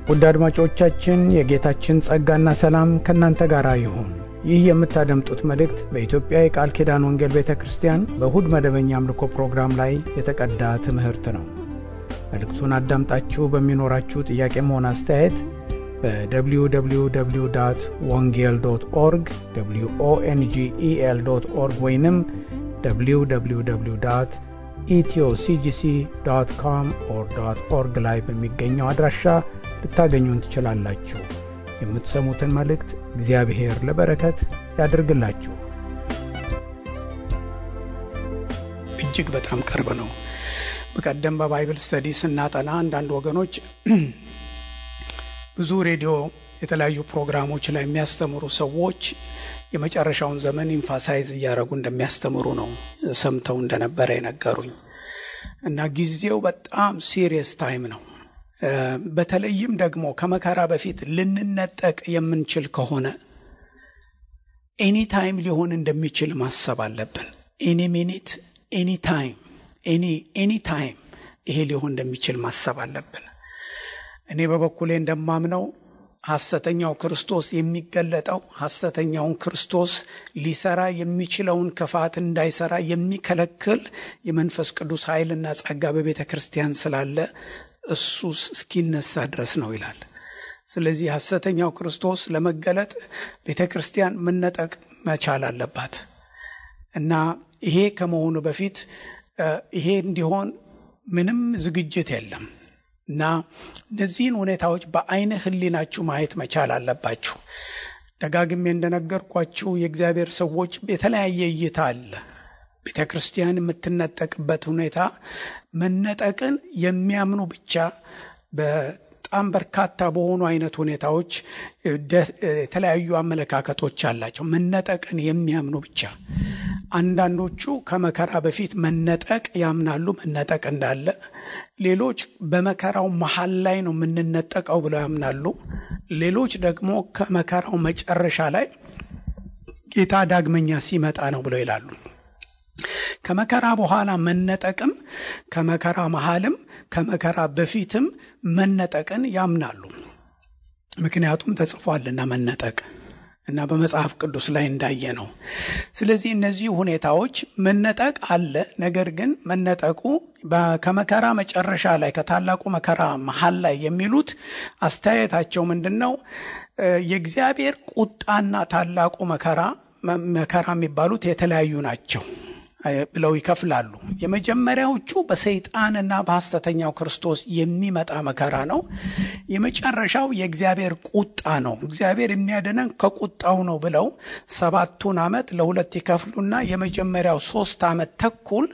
ውድ አድማጮቻችን የጌታችን ጸጋና ሰላም ከናንተ ጋር ይሁን። ይህ የምታደምጡት መልእክት በኢትዮጵያ የቃል ኪዳን ወንጌል ቤተክርስቲያን በእሁድ መደበኛ አምልኮ ፕሮግራም ላይ የተቀዳ ትምህርት ነው። መልእክቱን አዳምጣችሁ በሚኖራችሁ ጥያቄም ሆነ አስተያየት በwww.wongel.org wongel.org ወይንም www.ethioCGC.com/org ላይ በሚገኘው አድራሻ ልታገኙን ትችላላችሁ። የምትሰሙትን መልእክት እግዚአብሔር ለበረከት ያድርግላችሁ። እጅግ በጣም ቅርብ ነው። በቀደም በባይብል ስተዲ ስናጠና አንዳንድ ወገኖች ብዙ ሬዲዮ የተለያዩ ፕሮግራሞች ላይ የሚያስተምሩ ሰዎች የመጨረሻውን ዘመን ኢንፋሳይዝ እያደረጉ እንደሚያስተምሩ ነው ሰምተው እንደነበረ የነገሩኝ እና ጊዜው በጣም ሲሪየስ ታይም ነው። በተለይም ደግሞ ከመከራ በፊት ልንነጠቅ የምንችል ከሆነ ኤኒ ታይም ሊሆን እንደሚችል ማሰብ አለብን። ኤኒ ሚኒት፣ ኤኒ ታይም፣ ኤኒ ታይም ይሄ ሊሆን እንደሚችል ማሰብ አለብን። እኔ በበኩሌ እንደማምነው ሐሰተኛው ክርስቶስ የሚገለጠው ሐሰተኛውን ክርስቶስ ሊሰራ የሚችለውን ክፋት እንዳይሰራ የሚከለክል የመንፈስ ቅዱስ ኃይልና ጸጋ በቤተ ክርስቲያን ስላለ እሱ እስኪነሳ ድረስ ነው ይላል። ስለዚህ ሐሰተኛው ክርስቶስ ለመገለጥ ቤተ ክርስቲያን መነጠቅ መቻል አለባት እና ይሄ ከመሆኑ በፊት ይሄ እንዲሆን ምንም ዝግጅት የለም እና እነዚህን ሁኔታዎች በአይነ ህሊናችሁ ማየት መቻል አለባችሁ። ደጋግሜ እንደነገርኳችሁ የእግዚአብሔር ሰዎች የተለያየ እይታ አለ። ቤተ ክርስቲያን የምትነጠቅበት ሁኔታ መነጠቅን የሚያምኑ ብቻ በጣም በርካታ በሆኑ አይነት ሁኔታዎች የተለያዩ አመለካከቶች አላቸው። መነጠቅን የሚያምኑ ብቻ። አንዳንዶቹ ከመከራ በፊት መነጠቅ ያምናሉ፣ መነጠቅ እንዳለ። ሌሎች በመከራው መሃል ላይ ነው የምንነጠቀው ብለው ያምናሉ። ሌሎች ደግሞ ከመከራው መጨረሻ ላይ ጌታ ዳግመኛ ሲመጣ ነው ብለው ይላሉ። ከመከራ በኋላ መነጠቅም ከመከራ መሃልም ከመከራ በፊትም መነጠቅን ያምናሉ። ምክንያቱም ተጽፏልና መነጠቅ እና በመጽሐፍ ቅዱስ ላይ እንዳየ ነው። ስለዚህ እነዚህ ሁኔታዎች መነጠቅ አለ። ነገር ግን መነጠቁ ከመከራ መጨረሻ ላይ ከታላቁ መከራ መሃል ላይ የሚሉት አስተያየታቸው ምንድነው? የእግዚአብሔር ቁጣና ታላቁ መከራ የሚባሉት የተለያዩ ናቸው ብለው ይከፍላሉ። የመጀመሪያዎቹ በሰይጣንና በሐሰተኛው ክርስቶስ የሚመጣ መከራ ነው። የመጨረሻው የእግዚአብሔር ቁጣ ነው። እግዚአብሔር የሚያድነን ከቁጣው ነው ብለው 7 ዓመት ለሁለት ይከፍሉና የመጀመሪያው 3 ዓመት ተኩል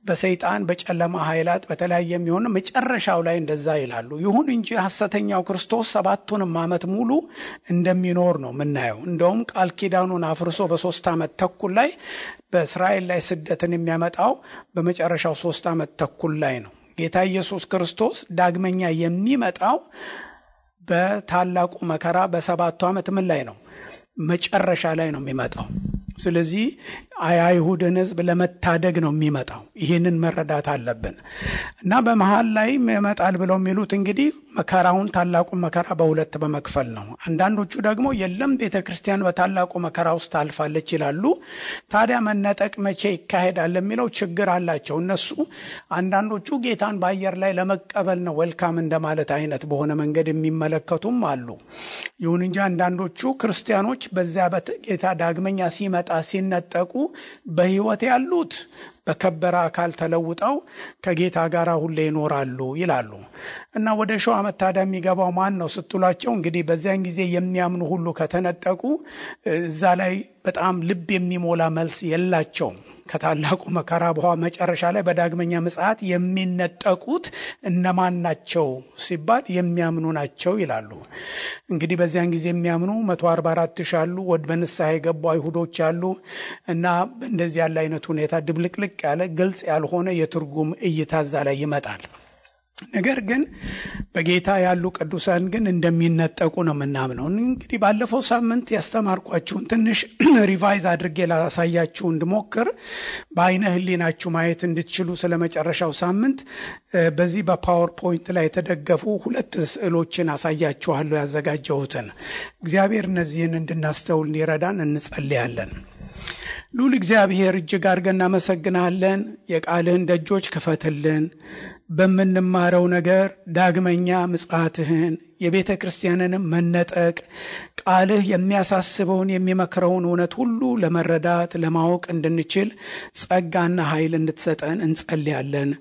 በሰይጣን በጨለማ ኃይላት በተለያየ የሚሆን መጨረሻው ላይ እንደዛ ይላሉ። ይሁን እንጂ ሐሰተኛው ክርስቶስ 7 ዓመት ሙሉ እንደሚኖር ነው የምናየው። እንደውም ቃል ኪዳኑን አፍርሶ በ3 ዓመት ተኩል ላይ በእስራኤል ላይ ስደትን የሚያመጣው በመጨረሻው 3 ዓመት ተኩል ላይ ነው። ጌታ ኢየሱስ ክርስቶስ ዳግመኛ የሚመጣው በታላቁ መከራ በ7 ዓመት ምን ላይ ነው? መጨረሻ ላይ ነው የሚመጣው። ስለዚህ አይሁድን ሕዝብ ለመታደግ ነው የሚመጣው። ይህንን መረዳት አለብን እና በመሃል ላይ ይመጣል ብለው የሚሉት እንግዲህ መከራውን ታላቁን መከራ በሁለት በመክፈል ነው። አንዳንዶቹ ደግሞ የለም ቤተክርስቲያን በታላቁ መከራ ውስጥ ታልፋለች ይላሉ። ታዲያ መነጠቅ መቼ ይካሄዳል የሚለው ችግር አላቸው እነሱ። አንዳንዶቹ ጌታን በአየር ላይ ለመቀበል ነው ዌልካም እንደማለት አይነት በሆነ መንገድ የሚመለከቱም አሉ። ይሁን እንጂ አንዳንዶቹ ክርስቲያኖች በዚያ ጌታ ዳግመኛ ሲመጣ ሲነጠቁ በህይወት ያሉት በከበረ አካል ተለውጠው ከጌታ ጋር ሁሌ ይኖራሉ ይላሉ። እና ወደ ሺው ዓመት ታዲያ የሚገባው ማን ነው ስትሏቸው እንግዲህ በዚያን ጊዜ የሚያምኑ ሁሉ ከተነጠቁ እዛ ላይ በጣም ልብ የሚሞላ መልስ የላቸውም። ከታላቁ መከራ በኋላ መጨረሻ ላይ በዳግመኛ ምጽአት የሚነጠቁት እነማን ናቸው ሲባል የሚያምኑ ናቸው ይላሉ። እንግዲህ በዚያን ጊዜ የሚያምኑ 144,000 አሉ። ወደ በንስሐ የገቡ አይሁዶች አሉ እና እንደዚህ ያለ አይነት ሁኔታ ድብልቅልቅ ያለ ግልጽ ያልሆነ የትርጉም እይታ እዛ ላይ ይመጣል። ነገር ግን በጌታ ያሉ ቅዱሳን ግን እንደሚነጠቁ ነው የምናምነው። እንግዲህ ባለፈው ሳምንት ያስተማርኳችሁን ትንሽ ሪቫይዝ አድርጌ ላሳያችሁ እንድሞክር በአይነ ህሊናችሁ ማየት እንድትችሉ ስለመጨረሻው ሳምንት በዚህ በፓወር ፖይንት ላይ የተደገፉ 2 ስዕሎችን አሳያችኋለሁ ያዘጋጀሁትን። እግዚአብሔር እነዚህን እንድናስተውል እንዲረዳን እንጸልያለን። ሉል እግዚአብሔር እጅግ አድርገን እናመሰግናለን። የቃልህን ደጆች ክፈትልን። በምንማረው ነገር ዳግመኛ ምጽአትህን የቤተ ክርስቲያንንም መነጠቅ ቃልህ የሚያሳስበውን የሚመክረውን እውነት ሁሉ ለመረዳት ለማወቅ እንድንችል ጸጋና ኃይል እንድትሰጠን እንጸልያለን።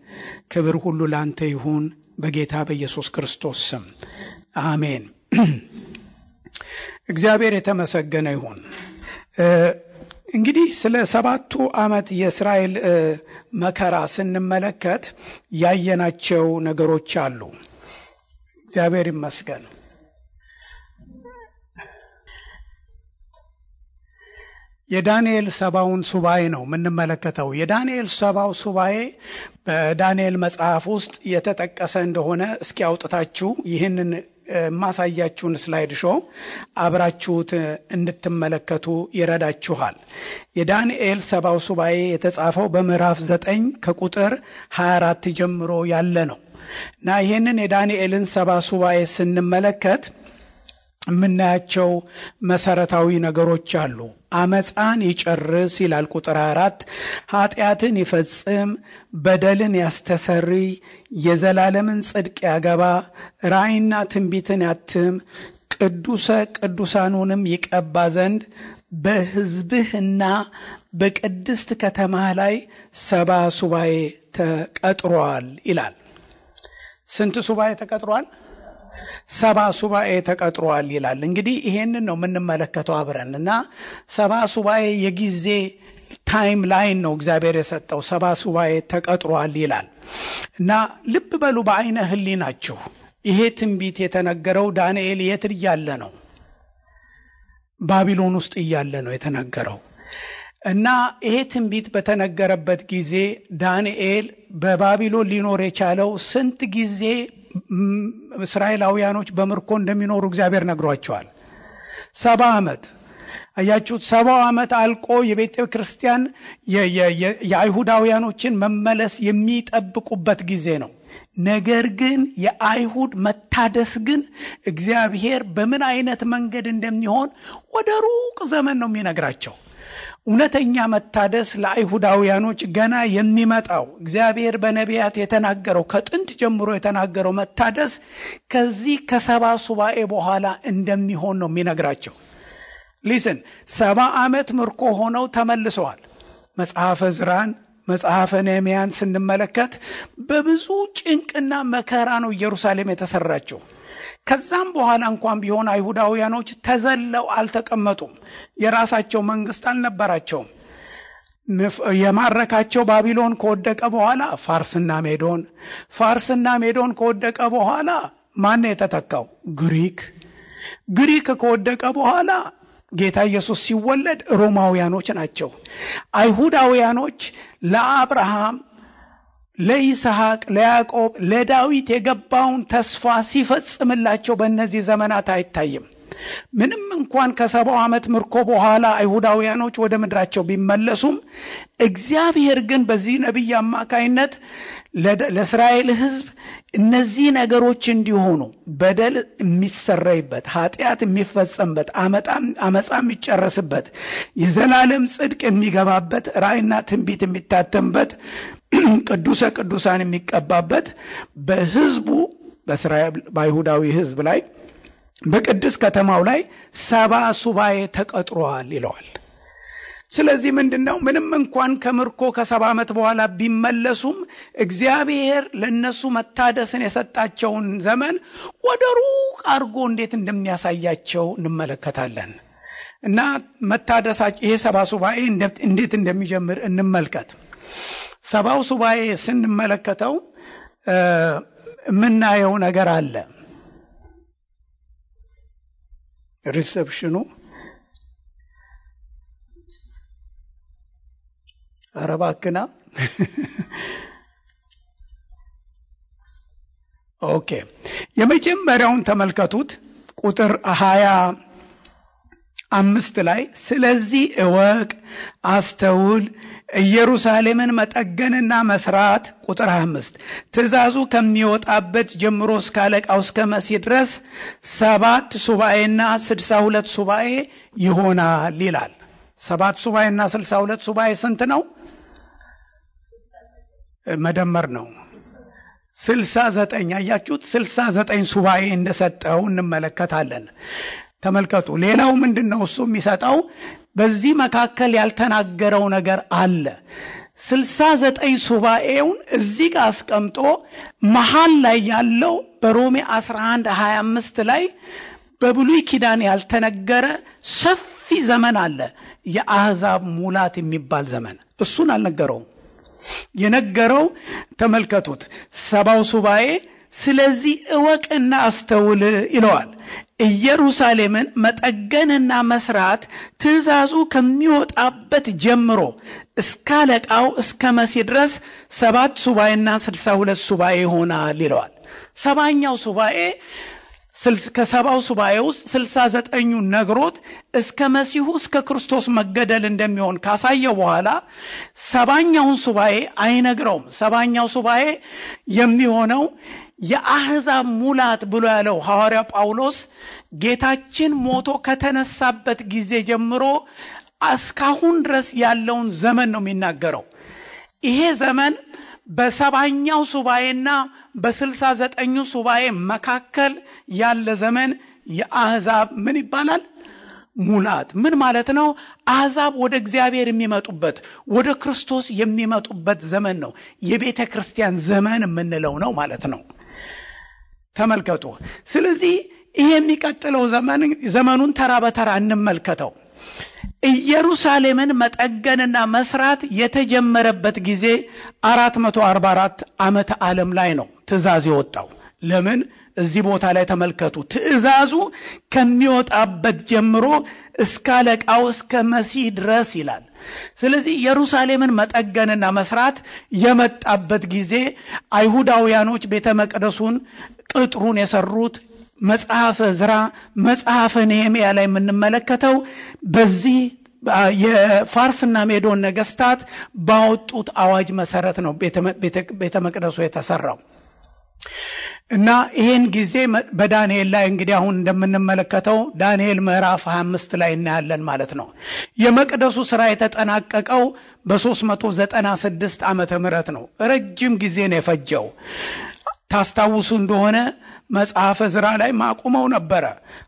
ክብር ሁሉ ላንተ ይሁን በጌታ በኢየሱስ ክርስቶስ ስም አሜን። እግዚአብሔር የተመሰገነ ይሁን። እንግዲህ ስለ 7ቱ ዓመት የእስራኤል መከራ ስንመለከት ያየናቸው ነገሮች አሉ። እግዚአብሔር ይመስገን። የዳንኤል 70ውን ሱባኤ ነው የምንመለከተው። የዳንኤል 70ው ሱባኤ በዳንኤል መጽሐፍ ውስጥ የተጠቀሰ እንደሆነ እስኪ አውጥታችሁ ይህንን ማሳያችሁን ስላይድ ሾው አብራችሁት እንድትመለከቱ ይረዳችኋል። የዳንኤል 70ው ሱባኤ የተጻፈው በምዕራፍ 9 ከቁጥር 24 ጀምሮ ያለ ነው እና ይህንን የዳንኤልን 70 ሱባኤ ስንመለከት የምናያቸው መሰረታዊ ነገሮች አሉ። አመፃን ይጨርስ ይላል ቁጥር 4። ኃጢአትን ይፈጽም፣ በደልን ያስተሰርይ፣ የዘላለምን ጽድቅ ያገባ፣ ራእይና ትንቢትን ያትም፣ ቅዱሰ ቅዱሳኑንም ይቀባ ዘንድ በሕዝብህና በቅድስት ከተማህ ላይ 70 ሱባኤ ተቀጥሯል ይላል። ስንት ሱባኤ ተቀጥሯል? 70 ሱባኤ ተቀጥሯል ይላል። እንግዲህ ይሄንን ነው የምንመለከተው አብረንና 70 ሱባኤ የጊዜ ታይም ላይን ነው እግዚአብሔር የሰጠው። 70 ሱባኤ ተቀጥሯል ይላል እና ልብ በሉ በአይነ ህሊናችሁ ይሄ ትንቢት የተነገረው ዳንኤል የት እያለ ነው? ባቢሎን ውስጥ እያለ ነው የተነገረው። እና ይሄ ትንቢት በተነገረበት ጊዜ ዳንኤል በባቢሎን ሊኖር የቻለው ስንት ጊዜ እስራኤላውያኖች በምርኮ እንደሚኖሩ እግዚአብሔር ነግሯቸዋል። 70 ዓመት። አያችሁት? 70 ዓመት አልቆ የቤተ ክርስቲያን የአይሁዳውያኖችን መመለስ የሚጠብቁበት ጊዜ ነው። ነገር ግን የአይሁድ መታደስ ግን እግዚአብሔር በምን አይነት መንገድ እንደሚሆን ወደ ሩቅ ዘመን ነው የሚነግራቸው። እውነተኛ መታደስ ለአይሁዳውያኖች ገና የሚመጣው እግዚአብሔር በነቢያት የተናገረው ከጥንት ጀምሮ የተናገረው መታደስ ከዚህ ከ70 ሱባኤ በኋላ እንደሚሆን ነው የሚነግራቸው። ሊስን 70 ዓመት ምርኮ ሆነው ተመልሰዋል። መጽሐፈ ዕዝራን መጽሐፈ ነህምያን ስንመለከት በብዙ ጭንቅና መከራ ነው ኢየሩሳሌም የተሰራችው። ከዛም በኋላ እንኳን ቢሆን አይሁዳውያኖች ተዘለው አልተቀመጡም። የራሳቸው መንግስት አልነበራቸውም። የማረካቸው ባቢሎን ከወደቀ በኋላ ፋርስና ሜዶን ከወደቀ በኋላ ማን የተተካው? ግሪክ ከወደቀ በኋላ ጌታ ኢየሱስ ሲወለድ ሮማውያኖች ናቸው። አይሁዳውያኖች ለአብርሃም፣ ለይስሐቅ፣ ለያዕቆብ፣ ለዳዊት የገባውን ተስፋ ሲፈጽምላቸው በእነዚህ ዘመናት አይታይም። ምንም እንኳን ከ70 ዓመት ምርኮ በኋላ አይሁዳውያኖች ወደ ምድራቸው ቢመለሱም እግዚአብሔር ግን በዚህ ነቢይ አማካይነት ለእስራኤል ሕዝብ እነዚህ ነገሮች እንዲሆኑ በደል የሚሰረይበት፣ ኃጢአት የሚፈጸምበት፣ አመፃ የሚጨረስበት፣ የዘላለም ጽድቅ የሚገባበት፣ ራእይና ትንቢት የሚታተምበት፣ ቅዱሰ ቅዱሳን የሚቀባበት በሕዝቡ በእስራኤል በአይሁዳዊ ሕዝብ ላይ በቅድስት ከተማው ላይ 70 ሱባኤ ተቀጥሯል ይለዋል። ስለዚህ ምንድነው? ምንም እንኳን ከምርኮ ከ70 ዓመት በኋላ ቢመለሱም እግዚአብሔር ለነሱ መታደስን የሰጣቸውን ዘመን ወደ ሩቅ አድርጎ እንዴት እንደሚያሳያቸው እንመለከታለን። እና መታደሳቸው ይሄ 70 ሱባኤ እንዴት እንደሚጀምር እንመልከት። 70 ሱባኤ ስንመለከተው የምናየው ነገር አለ። ሪሰፕሽኑ አረባክና ኦኬ የመጀመሪያውን ተመልከቱት። ቁጥር 25 ላይ ስለዚህ እወቅ፣ አስተውል፣ ኢየሩሳሌምን መጠገንና መስራት። ቁጥር 25 ትእዛዙ ከሚወጣበት ጀምሮ እስከ አለቃው እስከ መሲህ ድረስ 7 ሱባኤና 62 ሱባኤ ይሆናል ይላል። 7 ሱባኤና 62 ሱባኤ ስንት ነው? መደመር ነው 69። አያችሁት? 69 ሱባኤ እንደሰጠው እንመለከታለን። ተመልከቱ። ሌላው ምንድነው እሱ የሚሰጠው? በዚህ መካከል ያልተናገረው ነገር አለ። 69 ሱባኤውን እዚህ ጋር አስቀምጦ መሃል ላይ ያለው በሮሜ 11:25 ላይ በብሉይ ኪዳን ያልተነገረ ሰፊ ዘመን አለ። የአሕዛብ ሙላት የሚባል ዘመን እሱን አልነገረውም። የነገረው ተመልከቱት 70 ሱባኤ ስለዚህ እወቅና አስተውል ይለዋል። ኢየሩሳሌምን መጠገንና መስራት ትእዛዙ ከሚወጣበት ጀምሮ እስከ አለቃው እስከ መሲህ ድረስ 7 ሱባኤና 62 ሱባኤ ይሆናል ይለዋል። 70ኛው ሱባኤ ከ70 ሱባኤ ውስጥ 69ኙ ነግሮት እስከ መሲሁ እስከ ክርስቶስ መገደል እንደሚሆን ካሳየው በኋላ 70ኛውን ሱባኤ አይነግረውም። 70ኛው ሱባኤ የሚሆነው የአሕዛብ ሙላት ብሎ ያለው ሐዋርያ ጳውሎስ ጌታችን ሞቶ ከተነሳበት ጊዜ ጀምሮ እስካሁን ድረስ ያለውን ዘመን ነው የሚናገረው። ይሄ ዘመን በ70ኛው ሱባኤና በ69ኙ ሱባኤ መካከል ያለ ዘመን የአሕዛብ ምን ይባላል? ሙላት። ምን ማለት ነው? አሕዛብ ወደ እግዚአብሔር የሚመጡበት ወደ ክርስቶስ የሚመጡበት ዘመን ነው። የቤተ ክርስቲያን ዘመን የምንለው ነው ማለት ነው። ተመልከቱ። ስለዚህ ይሄ የሚቀጥለው ዘመኑን ተራ በተራ እንመልከተው። ኢየሩሳሌምን መጠገንና መስራት የተጀመረበት ጊዜ 444 ዓመተ ዓለም ላይ ነው ትእዛዝ የወጣው። ለምን? እዚህ ቦታ ላይ ተመልከቱ። ትእዛዙ ከሚወጣበት ጀምሮ እስከ አለቃው እስከ መሲህ ድረስ ይላል። ስለዚህ ኢየሩሳሌምን መጠገንና መስራት የመጣበት ጊዜ አይሁዳውያኖች ቤተ መቅደሱን ቅጥሩን የሰሩት መጽሐፈ ዕዝራ መጽሐፈ ነህምያ ላይ የምንመለከተው በዚህ የፋርስና ሜዶን ነገስታት ባወጡት አዋጅ መሰረት ነው ቤተ መቅደሱ የተሰራው። እና ይሄን ጊዜ በዳንኤል ላይ እንግዲህ አሁን እንደምንመለከተው ዳንኤል ምዕራፍ 25 ላይ እናያለን ማለት ነው። የመቅደሱ ሥራ የተጠናቀቀው በ396 ዓመተ ምህረት ነው። ረጅም ጊዜ ነው የፈጀው። ታስታውሱ እንደሆነ መጽሐፈ ዕዝራ ላይ ማቁመው ነበረ።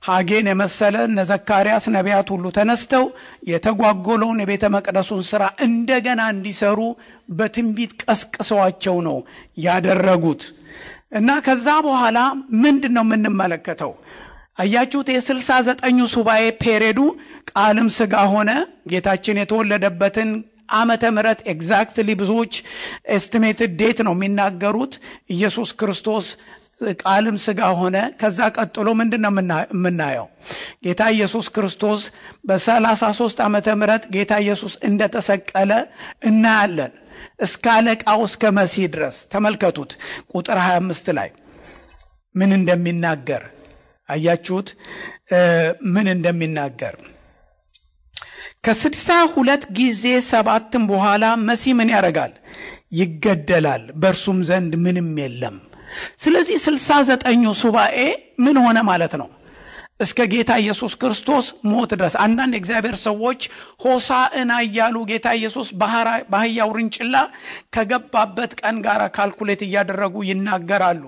ሐጌን የመሰለ እነ ዘካርያስ ነቢያት ሁሉ ተነስተው የተጓጎለውን የቤተ መቅደሱን ሥራ እንደገና እንዲሰሩ በትንቢት ቀስቅሰዋቸው ነው ያደረጉት። እና ከዛ በኋላ ምንድነው የምንመለከተው? አያችሁት? የ69ኙ ሱባኤ ፔሬዱ ቃልም ሥጋ ሆነ ጌታችን የተወለደበትን ዓመተ ምህረት ኤግዛክትሊ ብዙዎች ኤስቲሜትድ ዴት ነው የሚናገሩት። ኢየሱስ ክርስቶስ ቃልም ሥጋ ሆነ። ከዛ ቀጥሎ ምንድነው የምናየው? ጌታ ኢየሱስ ክርስቶስ በ33 ዓመተ ምህረት ጌታ ኢየሱስ እንደተሰቀለ እናያለን። እስከ አለቃው እስከ መሲህ ድረስ ተመልከቱት። ቁጥር 25 ላይ ምን እንደሚናገር አያችሁት? ምን እንደሚናገር ከ62 ጊዜ 7 በኋላ መሲህ ምን ያደርጋል? ይገደላል፣ በእርሱም ዘንድ ምንም የለም። ስለዚህ 69ኙ ሱባኤ ምን ሆነ ማለት ነው? እስከ ጌታ ኢየሱስ ክርስቶስ ሞት ድረስ። አንዳንድ እግዚአብሔር ሰዎች ሆሳዕና እያሉ ጌታ ኢየሱስ በአህያ ውርንጭላ ከገባበት ቀን ጋር ካልኩሌት እያደረጉ ይናገራሉ።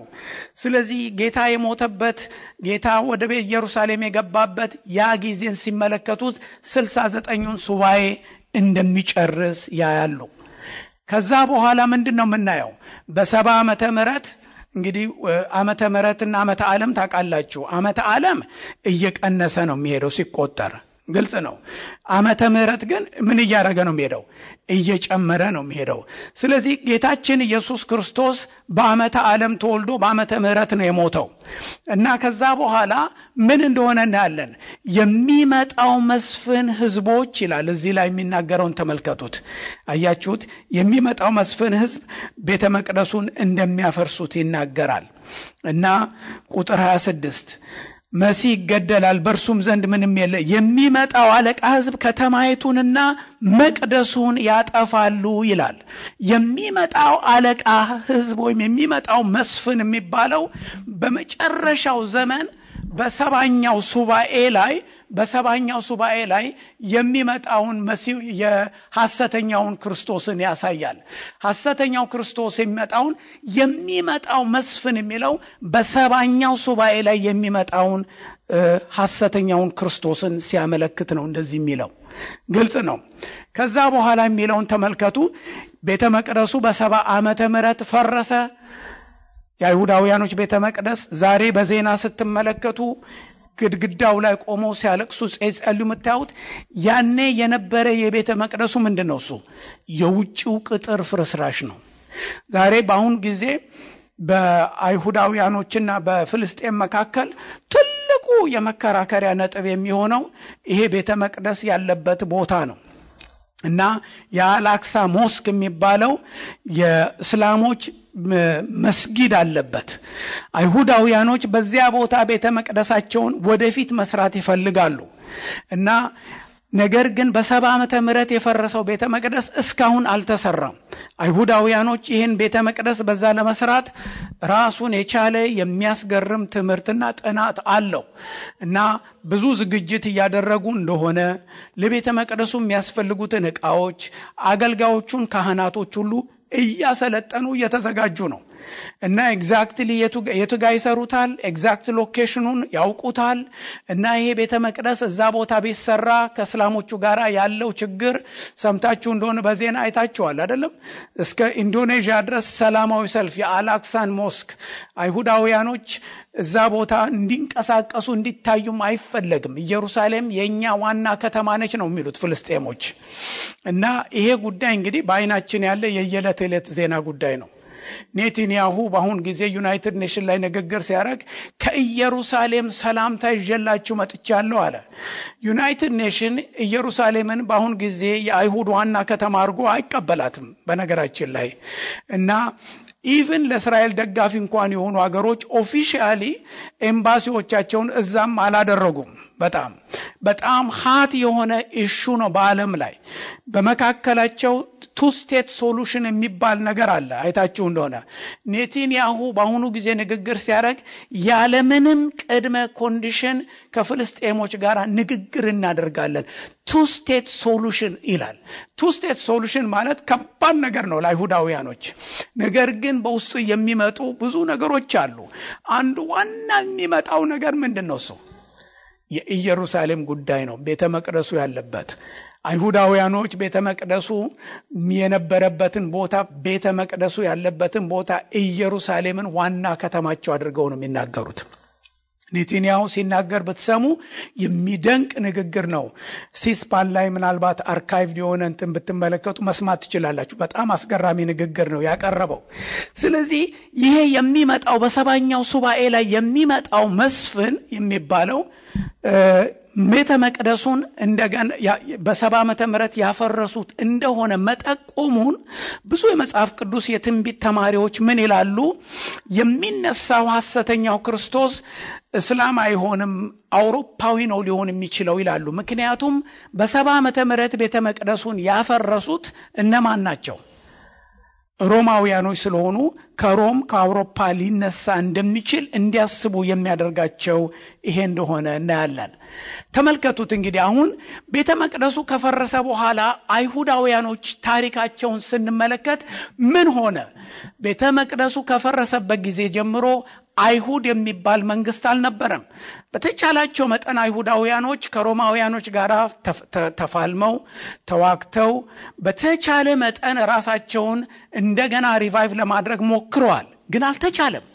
ስለዚህ ጌታ የሞተበት ጌታ ወደ ኢየሩሳሌም የገባበት ያ ጊዜን ሲመለከቱት 69ኙን ሱባኤ እንደሚጨርስ ያያሉ። ከዛ በኋላ ምንድነው የምናየው? በ70 ዓመተ ምህረት እንግዲህ ዓመተ ምህረትና ዓመተ ዓለም ታውቃላችሁ። ዓመተ ዓለም እየቀነሰ ነው የሚሄደው ሲቆጠር፣ ግልጽ ነው። ዓመተ ምህረት ግን ምን እያደረገ ነው የሚሄደው? እየጨመረ ነው የሚሄደው። ስለዚህ ጌታችን ኢየሱስ ክርስቶስ በዓመተ ዓለም ተወልዶ በዓመተ ምህረት ነው የሞተው እና ከዛ በኋላ ምን እንደሆነ እናያለን። የሚመጣው መስፍን ህዝቦች ይላል። እዚህ ላይ የሚናገረውን ተመልከቱት። አያችሁት? የሚመጣው መስፍን ህዝብ ቤተ መቅደሱን እንደሚያፈርሱት ይናገራል። እና ቁጥር 26 መሲህ ይገደላል፣ በእርሱም ዘንድ ምንም የለ፣ የሚመጣው አለቃ ሕዝብ ከተማይቱንና መቅደሱን ያጠፋሉ ይላል። የሚመጣው አለቃ ሕዝብ ወይም የሚመጣው መስፍን የሚባለው በመጨረሻው ዘመን በሰባኛው ሱባኤ ላይ የሚመጣውን መሲህ የሐሰተኛውን ክርስቶስን ያሳያል። ሐሰተኛው ክርስቶስ የሚመጣው መስፍን የሚለው በሰባኛው ሱባኤ ላይ የሚመጣውን ሐሰተኛውን ክርስቶስን ሲያመለክት ነው እንደዚህ የሚለው። ግልጽ ነው። ከዛ በኋላ የሚለውን ተመልከቱ። ቤተ መቅደሱ በ70 ዓመተ ምህረት ፈረሰ። የአይሁዳውያኖች ቤተ መቅደስ ዛሬ በዜና ስትመለከቱ ግድግዳው ላይ ቆመው ሲያለቅሱ ጸልዩ የምታዩት ያኔ የነበረ የቤተ መቅደሱ ምንድነው? እሱ የውጭው ቅጥር ፍርስራሽ ነው። ዛሬ በአሁን ጊዜ በአይሁዳውያኖችና በፍልስጤም መካከል ትልቁ የመከራከሪያ ነጥብ የሚሆነው ይሄ ቤተ መቅደስ ያለበት ቦታ ነው እና የአላክሳ ሞስክ የሚባለው የእስላሞች መስጊድ አለበት። አይሁዳውያኖች በዚያ ቦታ ቤተ መቅደሳቸውን ወደፊት መስራት ይፈልጋሉ እና ነገር ግን በ70 ዓመተ ምህረት የፈረሰው ቤተ መቅደስ እስካሁን አልተሰራም። አይሁዳውያኖች ይህን ቤተ መቅደስ በዛ ለመስራት ራሱን የቻለ የሚያስገርም ትምህርትና ጥናት አለው እና ብዙ ዝግጅት እያደረጉ እንደሆነ ለቤተ መቅደሱ የሚያስፈልጉትን ዕቃዎች፣ አገልጋዮቹን፣ ካህናቶች ሁሉ እያሰለጠኑ እየተዘጋጁ ነው እና ኤግዛክትሊ የቱ ጋር ይሰሩታል፣ ኤግዛክት ሎኬሽኑን ያውቁታል እና ይሄ ቤተ መቅደስ እዛ ቦታ ቢሰራ ከእስላሞቹ ጋር ያለው ችግር ሰምታችሁ እንደሆነ በዜና አይታችኋል አይደለም? እስከ ኢንዶኔዥያ ድረስ ሰላማዊ ሰልፍ የአላክሳን ሞስክ አይሁዳውያኖች እዛ ቦታ እንዲንቀሳቀሱ እንዲታዩም አይፈለግም። ኢየሩሳሌም የኛ ዋና ከተማ ነች ነው የሚሉት ፍልስጤሞች እና ይሄ ጉዳይ እንግዲህ በአይናችን ያለ የየዕለት ዜና ጉዳይ ነው። ኔታንያሁ በአሁን ጊዜ ዩናይትድ ኔሽን ላይ ንግግር ሲያደርግ ከኢየሩሳሌም ሰላምታ ይዤላችሁ መጥቻለሁ አለ። ዩናይትድ ኔሽን ኢየሩሳሌምን በአሁን ጊዜ የአይሁድ ዋና ከተማ አድርጎ አይቀበላትም በነገራችን ላይ እና ኢቭን ለእስራኤል ደጋፊ እንኳን የሆኑ ሀገሮች ኦፊሻሊ ኤምባሲዎቻቸውን እዛም አላደረጉም። በጣም ሃት የሆነ ኢሹ ነው በዓለም ላይ። በመካከላቸው ቱ ስቴት ሶሉሽን የሚባል ነገር አለ። አይታችሁ እንደሆነ ኔታንያሁ በአሁኑ ጊዜ ንግግር ሲያደርግ ያለምንም ቅድመ ኮንዲሽን ከፍልስጤሞች ጋር ንግግር እናደርጋለን ቱ ስቴት ሶሉሽን ይላል። ቱ ስቴት ሶሉሽን ማለት ከባድ ነገር ነው ለአይሁዳውያኖች። ነገር ግን በውስጡ የሚመጡ ብዙ ነገሮች አሉ። አንዱ ዋና የሚመጣው ነገር ምንድነው? እሱ የኢየሩሳሌም ጉዳይ ነው። ቤተ መቅደሱ ያለበት አይሁዳውያኖች ቤተ መቅደሱ የነበረበትን ቦታ፣ ቤተ መቅደሱ ያለበትን ቦታ ኢየሩሳሌምን ዋና ከተማቸው አድርገው ነው የሚናገሩት። ኔታንያሁ ሲናገር ብትሰሙ የሚደንቅ ንግግር ነው። ሲስፓን ላይ ምናልባት አርካይቭ የሆነ እንትን ብትመለከቱ መስማት ትችላላችሁ። በጣም አስገራሚ ንግግር ነው ያቀረበው። ስለዚህ ይሄ የሚመጣው በሰባኛው ሱባኤ ላይ የሚመጣው መስፍን የሚባለው ቤተ መቅደሱን እንደገና በ70 ዓመተ ምህረት ያፈረሱት እንደሆነ መጠቆሙን ብዙ የመጽሐፍ ቅዱስ የትንቢት ተማሪዎች ምን ይላሉ? የሚነሳው ሐሰተኛው ክርስቶስ እስላም አይሆንም፣ አውሮፓዊ ነው ሊሆን የሚችለው ይላሉ። ምክንያቱም በ70 ዓመተ ምህረት ቤተ መቅደሱን ያፈረሱት እነማን ናቸው? ሮማውያኖች ስለሆኑ ከሮም ከአውሮፓ ሊነሳ እንደሚችል እንዲያስቡ የሚያደርጋቸው ይሄ እንደሆነ እናያለን። ተመልከቱት እንግዲህ አሁን ቤተ መቅደሱ ከፈረሰ በኋላ አይሁዳውያኖች ታሪካቸውን ስንመለከት ምን ሆነ? ቤተ መቅደሱ ከፈረሰበት ጊዜ ጀምሮ አይሁድ የሚባል መንግስት አልነበረም። በተቻላቸው መጠን አይሁዳውያኖች ከሮማውያኖች ጋር ተፋልመው ተዋግተው በተቻለ መጠን ራሳቸውን እንደገና ሪቫይቭ ለማድረግ ሞክረዋል፣ ግን አልተቻለም።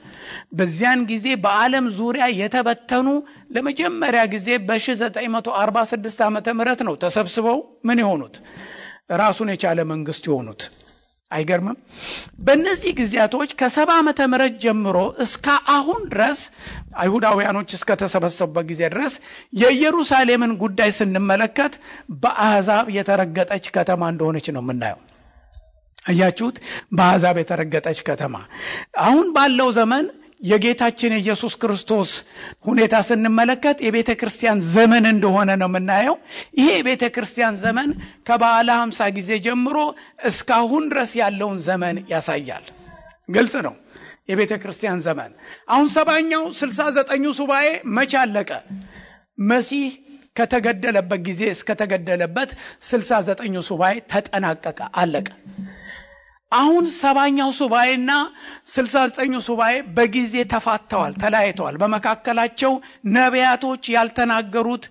በዚያን ጊዜ በዓለም ዙሪያ የተበተኑ ለመጀመሪያ ጊዜ በ1946 ዓመተ ምህረት ነው ተሰብስበው ምን የሆኑት? ራሱን የቻለ መንግስት የሆኑት። አይገርምም? በእነዚህ ጊዜያቶች ከ70 ዓመተ ምህረት ጀምሮ እስከ አሁን ድረስ አይሁዳውያኖች እስከ ተሰበሰቡበት ጊዜ ድረስ የኢየሩሳሌምን ጉዳይ ስንመለከት በአሕዛብ የተረገጠች ከተማ እንደሆነች ነው የምናየው። አያችሁት? በአሕዛብ የተረገጠች ከተማ። አሁን ባለው ዘመን የጌታችን የኢየሱስ ክርስቶስ ሁኔታ ስንመለከት የቤተ ክርስቲያን ዘመን እንደሆነ ነው የምናየው። ይሄ የቤተ ክርስቲያን ዘመን ከበዓለ 50 ጊዜ ጀምሮ እስካሁን ድረስ ያለውን ዘመን ያሳያል። ግልጽ ነው የቤተ ክርስቲያን ዘመን። አሁን 70ኛው 69ኙ ሱባኤ መቼ አለቀ? መሲህ ከተገደለበት ጊዜ እስከተገደለበት 69ኙ ሱባኤ ተጠናቀቀ፣ አለቀ። አሁን 70ኛው ሱባኤና 69ኙ ሱባኤ በጊዜ ተፋተዋል፣ ተለያይተዋል። በመካከላቸው ነቢያቶች ያልተናገሩት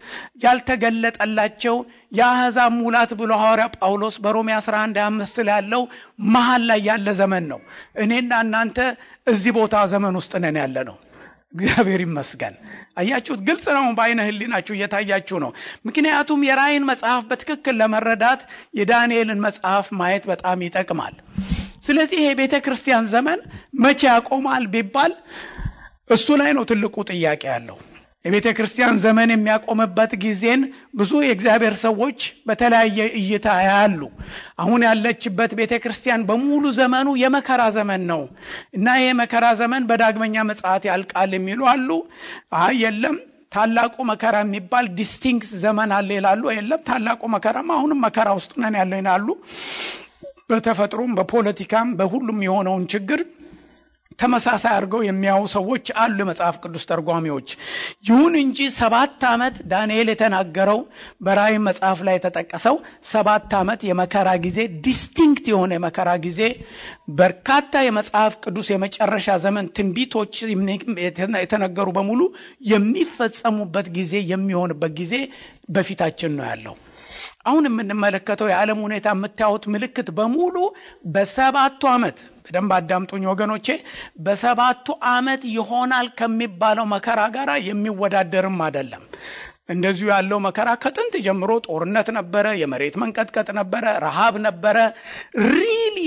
ያልተገለጠላቸው የአሕዛብ ሙላት ብሎ ሐዋርያ ጳውሎስ በሮሜ 11:5 ላይ ያለው መሃል ላይ ያለ ዘመን ነው። እኔና እናንተ እዚህ ቦታ ዘመን ውስጥ ነን ያለ ነው። እግዚአብሔር ይመስገን። አያችሁት? ግልጽ ነው፣ በአይነ ህሊናችሁ እየታያችሁ ነው። ምክንያቱም የራእይን መጽሐፍ በትክክል ለመረዳት የዳንኤልን መጽሐፍ ማየት በጣም ይጠቅማል። ስለዚህ ይሄ ቤተ ክርስቲያን ዘመን መቼ ያቆማል ቢባል እሱ ላይ ነው ትልቁ ጥያቄ ያለው። የቤተ ክርስቲያን ዘመን የሚያቆምበት ጊዜን ብዙ የእግዚአብሔር ሰዎች በተለያየ እይታ ያያሉ። አሁን ያለችበት ቤተ ክርስቲያን በሙሉ ዘመኑ የመከራ ዘመን ነው እና ይሄ መከራ ዘመን በዳግመኛ ምጽአት ያልቃል የሚሉ አሉ። የለም ታላቁ መከራ የሚባል ዲስቲንክት ዘመን አለ ይላሉ። የለም ታላቁ መከራም አሁንም መከራ ውስጥ ነን ያለው ይላሉ። በተፈጥሮም በፖለቲካም በሁሉም የሆነውን ችግር ተመሳሳይ አድርገው የሚያዩ ሰዎች አሉ፣ መጽሐፍ ቅዱስ ተርጓሚዎች። ይሁን እንጂ 7 ዓመት ዳንኤል የተናገረው በራእይ መጽሐፍ ላይ የተጠቀሰው 7 ዓመት የመከራ ጊዜ፣ ዲስቲንክት የሆነ የመከራ ጊዜ፣ በርካታ የመጽሐፍ ቅዱስ የመጨረሻ ዘመን ትንቢቶች የተነገሩ በሙሉ የሚፈጸሙበት ጊዜ የሚሆንበት ጊዜ በፊታችን ነው ያለው። አሁን የምንመለከተው የዓለም ሁኔታ የምታዩት ምልክት በሙሉ በ7 ዓመት በደንብ አዳምጡኝ ወገኖቼ፣ በ7 ዓመት ይሆናል ከሚባለው መከራ ጋር የሚወዳደርም አይደለም። እንደዚሁ ያለው መከራ ከጥንት ጀምሮ ጦርነት ነበረ፣ የመሬት መንቀጥቀጥ ነበረ፣ ረሃብ ነበረ። ሪል